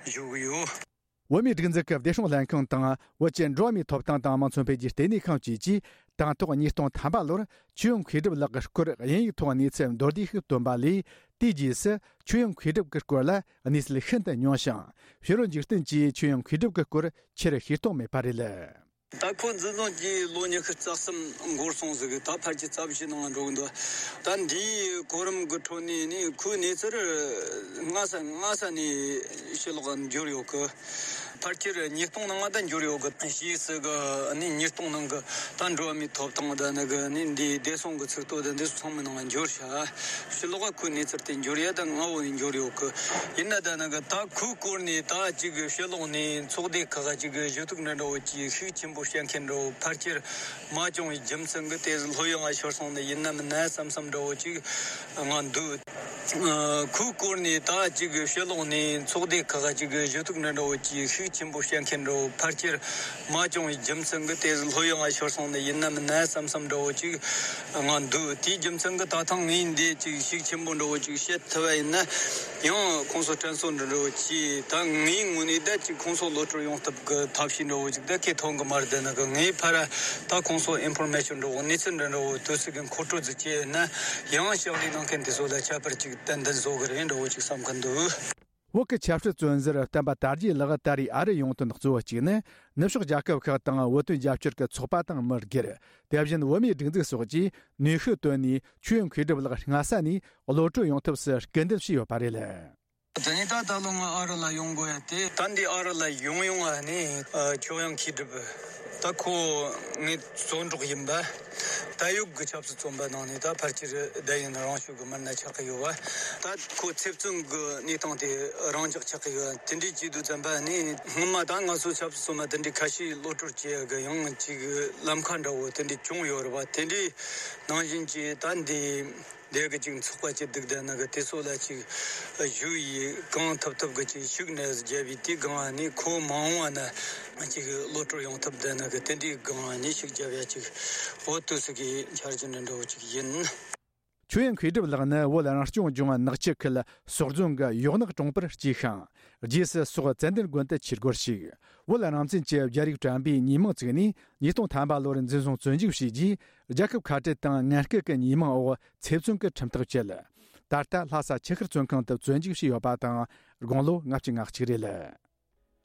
བཞུགས་གི་ཡོད། བོད་མིའི་སྒྲིག་འཛུགས་ཀྱི་བདེ་སྲུང་ལྷན་ཁང་དང་བོད་ཀྱི་འགྲོ་བ་མིའི་ཐོབ་ཐང་དང་མང་གཙོ་འཕེལ་རྒྱས་ལྟེ་གནས་ཁང་བཅས་ཀྱིས་དང་ཐོག་ཉིས་སྟོང་ཐམ་པ་ལོར་ཆོས་དབྱིངས་མཁས་གྲུབ་ལགས་ཀྱི་སྐོར་དབྱིན་ཡིག་ཐོག་གནས་ཚུལ་མདོར་བསྡུས་ཤིག་བཏོན་པ་ལས། དེའི་རྗེས་སུ་ཆོས་དབྱིངས་མཁས་གྲུབ་ཀྱི་སྐོར་ལ་གནས་ཚུལ་ཤིན་ཏུ་ཉུང་ཞིང་། ཕྱི་རོལ་འཇིག་རྟེན་གྱིས་ཆོས་དབྱིངས་མཁས་གྲུབ་ཀྱི་སྐོར་ཆེར་ཤེས་རྟོགས་མེད་པ་རེད། ད་ཁོ་འཛིན་བཟུང་གིས་ལོ་ཉི་ཤུ་རྩ་གསུམ་འགོར་སོང་ཟིག་གི། ད་ཕལ་ཆེར་རྩ་བཞི་ནང་འགྲོ་གི་འདུག་ད་འདིའི་གོ་རིམ་གི་ཁྲོད་ནས་ནི་ཁོའི་གནས་ཚུལ་སྔ་ས་སྔ་ས་ནས་ཕྱི་ལོགས་འབྱོར་ཡོད་གི། ཕལ་ཆེར་ཉིས་སྟོང་ནང་ང་ད་འབྱོར་ཡོད་གི། ཕྱིས་སུ་གི་ནི་ཉིས་སྟོང་ནང་གི་ད་འགྲོ་བ་མིའི་ཐོབ་ཐང་ད་ནི་གི་ནི་འདིའི་བདེ་སྲུང་གི་ཚིག་ཐོ་ད་འདི་ཚོ་ཚང་མའི་ནང་འབྱོར་ཤག་ཕྱི་ལོགས་ཁོའི་གནས་ཚུལ་དེ་འབྱོར་ཡ་ད་སྔ་བོ་ནས་འབྱོར་ཡོད་གི། ཡིན་ན་ད་ནི་གི་ད་ཁོའི་སྐོར་ནས་ད་ཅིག་གི་ཕྱི་ལོགས་ནས་ཚོགས་སྡེ་ཁག་ཅིག་གི་ཞུ་གཏུག་འདྲ་འདྲ་བོ་ཅིག་ཤུགས་ཆེན་པོ་བཤད་མཁན་འདྲ་བོ་ཕལ་ཆེར་མ་བྱུང་བའི་རྒྱུ་མཚན་གི་དེ་ལྷོད་ཡངས་ཤོར་སོང་ནི་ཡིན་ནམ་ན་བསམ་བསམ་འདྲ་བོ་ཅིག་ང་འདུག་ཁོའི་སྐོར་ནས་ད་ཅིག་ཕྱི་ལོགས་ནས་ཚོགས་སྡེ་ཁག་ཅིག་གི་ཞུ་གཏུག་འདྲ་འདྲ་བོ་ཅིག་ཤུགས་ཆེན་པོ་བཤད་མཁན་འདྲ་བོ་ཕལ་ཆེར་མ་བྱུང་བའི་རྒྱུ་མཚན་གི་དེ་ལྷོད་ཡངས་ཤོར་སོང་ནི་ཡིན་ནམ་ན་བསམ་བསམ་འདྲ་བོ་ཅིག་ང་འདུག་དེའི་རྒྱུ་མཚན་གི་ད་ཐེངས་ངས་འདི་ཅིག་ཤུགས་ཆེན་པོ་འདྲ་བོ་ཅིག་བཤད་ཐུབ་པ་ཡིན་ན་ཡང་ཁོང་ཚོ་དྲན་གསོ་འདྲ་འདྲ་བོ་ཅིག་ད་ངའི་ངོས་ནས་ད་ཅིག་ཁོང་ཚོ་གློད་བཀྲོལ་ཡོང་ཐབས་གི་ཐབས་ཤེས་འདྲ་བོ་ཅིག་ད་ཁེ་ཐོན་གི་མ་རེད། ད་ནི་གི་ངའི་ཕར་ད་ཁོང་ཚོ་ཨིན་ཕོར་མེ་ཤོན་འདྲ་བོ་གནས་ཚུལ་འདྲ་འདྲ་བོ་དུས་ཚོད་གི་མཁོ་སྤྲོད་ཅིག་བྱས་ན་ཡང་ཕྱག་ལས་གནང་མཁན་དེ་ཚོ་ལ་ཁྱད་པར་ཅིག་ཏན་ཏན་བཟོ་གི་རེད་འདྲ་བོ་ཅིག་བསམ་གི་འདུག་བོད་ཀྱི་ཆབ་སྲིད་བཙོན་ཟུར་བསྟན་པ་དར་རྒྱས་ལགས་ད་རེས་ཨ་རི་ཡོང་དོན་གཙོ་བོ་གཅིག་ནི། ནུབ་ཕྱོགས་རྒྱལ་ཁབ་ཁག་དང་བོད་དོན་རྒྱབ་སྐྱོར་གྱི་ཚོགས་པ་དང་མི་སྒེར། དེ་བཞིན་བོད་མིའི་སྒྲིག་འཛུགས་སོགས་ཀྱིས་ནུས་ཤུགས་བཏོན་ནས་ཆོས་དབྱིངས་མཁས་གྲུབ་ལགས་སྔ་ས་ནས་གློད་བཀྲོལ་ཡོང་ཐབས་སུ་སྐུལ་འདེད་བྱས་ཡོད་པ་རེད། དེ་ནས་ད་ད་ལོ་ང་ཨ་རི་ལ་ཡོང་དགོས་ཡ་དེ། ད་འདི་ཨ་རི་ལ་ཡོང་ཡོང་ང་ནས་ཆོས་དབྱིངས་མཁས་གྲུབ་ད་ཁོ་ངའི་བཙོན་གྲོགས་ཡིན་པ། ད་ཡོད་གི་ཆབ་སྲིད་བཙོན་པ་ནང་ནས་ད་ཕལ་ཆེར་བསྡད་ཡིན་རང་ཤུགས་གི་མི་སྣ་ཆགས་ཀྱི་ཡོད་བ། ད་ཁོ་ཚེ་བཙོན་གི་གནས་སྟངས་དེ་རང་འཇགས་ཆགས་ཀྱི་ཡོད། དེ་འདྲའི་བྱེད་དུས་ཙམ་པ་ནི་སྔོན་མ་ད་ང་ཚོ་ཆབ་སྲིད་བཙོན་པ་དེ་འདྲའི་ཁ་ཤས་གློད་བཀྲོལ་བྱེད་ཡ་གི་ཡང་ཅིག་ལམ་ཁ་འདྲ་བོ་དེ་འདྲའི་བྱུང་ཡོད་རེད་བ། དེ་འདྲའི་ནང་བཞིན་གྱི་ད་འདི་འདི་གི་ཅིག་ཚོགས་པ་ཅིག་འདུག་བསྡད་ན་གི་དེ་ཚོ་ལ་ཅིག་ཞུ་ཡི་གང་ཐུབ་ཐུབ་གི་ཅིག་ཤུགས་ནས་རྒྱབ་ཡི་དེ་གང་ནི་ཁོ་མ་འོངས་བ་ན་ཅིག་གློད་བཀྲོལ་ཡོང་ཐུབ་བསྡད་ན་གི་དེ་འདྲའི་གང་ནི་ཤུགས་རྒྱབ་ཡ་ཅིག་འོ་དུས་སུ་གི་འཆར་གཞི་འདྲ་འདྲ་བོ་ཅིག་ཡིན། ཆོས་དབྱིངས་མཁས་གྲུབ་ལགས་ནི་བོད་རང་སྐྱོང་ལྗོངས་ནག་ཆུ་ཁུལ་ཟོག་རྫོང་གི་ཡོག་ནག་གྲོང་པར་སྐྱེས་ཤིང་། རྗེས་སུ་སོག་ཙན་དན་དགོན་དུ་ཆོས་སྒོར་ཞུགས། བོད་རང་བཙན་གྱི་རྒྱ་རིགས་དྲན་པའི་ཉིན་མོ་བཙུགས་ནས་ཉིས་སྟོང་ཐམ་པ་ལོར་འཛིན་བཟུང་བཙོན་འཇུག་བྱས་རྗེས། རྒྱལ་ཁབ་ཁ་བྲལ་དང་ངན་སྐུལ་གྱི་ཉེས་མིང་འོག་ཚེ་བཙོན་གྱི་ཁྲིམས་ཐག་བཅད། ད་ལྟ་ལྷ་ས་ཆུ་ཤུར་བཙོན་ཁང་དུ་བཙོན་འཇུག་བྱས་ཡོད་པ་དང་། དགུང་ལོ་ལྔ་བཅུ་ང་གཅིག་རེད།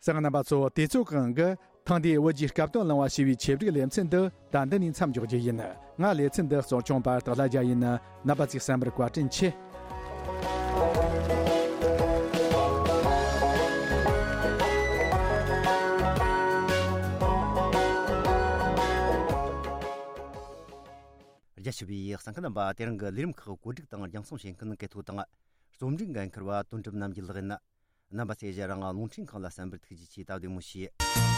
གསན་མཁན་རྣམ་པ་ཚོ། དུས་ཚོད་ཀྱི་དབང་གིས་ཐེངས་འདིའི་བོད་ཀྱི་སྐབས་དོན་གླེང་བ་ཞེས་པའི་ཆེད་སྒྲིག་ལེ་ཚན་འདི་ད་འདི་ནས་མཚམས་འཇོག་རྒྱུ་ཡིན། ང་ལེ་ཚན་འདི་གཙོ་སྐྱོང་པ་སྟག་ལྷ་རྒྱལ་ཡིན། རྣམ་པ་ཚོས་གསན་པར་བཀའ་དྲིན་ཆེ། རྒྱ་ཆེ་བའི་གསན་མཁན་རྣམ་པ། དེ་རིང་གི་ལས་རིམ་ཁག་གོ་སྒྲིག་དང་རྒྱང་སྲིང་བྱེད་མཁན་སྐད་ཐོག་དང་རྩོམ་སྒྲིག་འགན་འཁུར་བ་དོན་གྲུབ་རྣམ་རྒྱལ་ལགས་ཡིན། རྣམ་པ་ཚོས་ཞལ་རང་རླུང་འཕྲིན་ཁང་ལ་གསན་པར་ཐུགས་རྗེ་ཆེ། སྟབས་བདེ་མོ་བྱོས།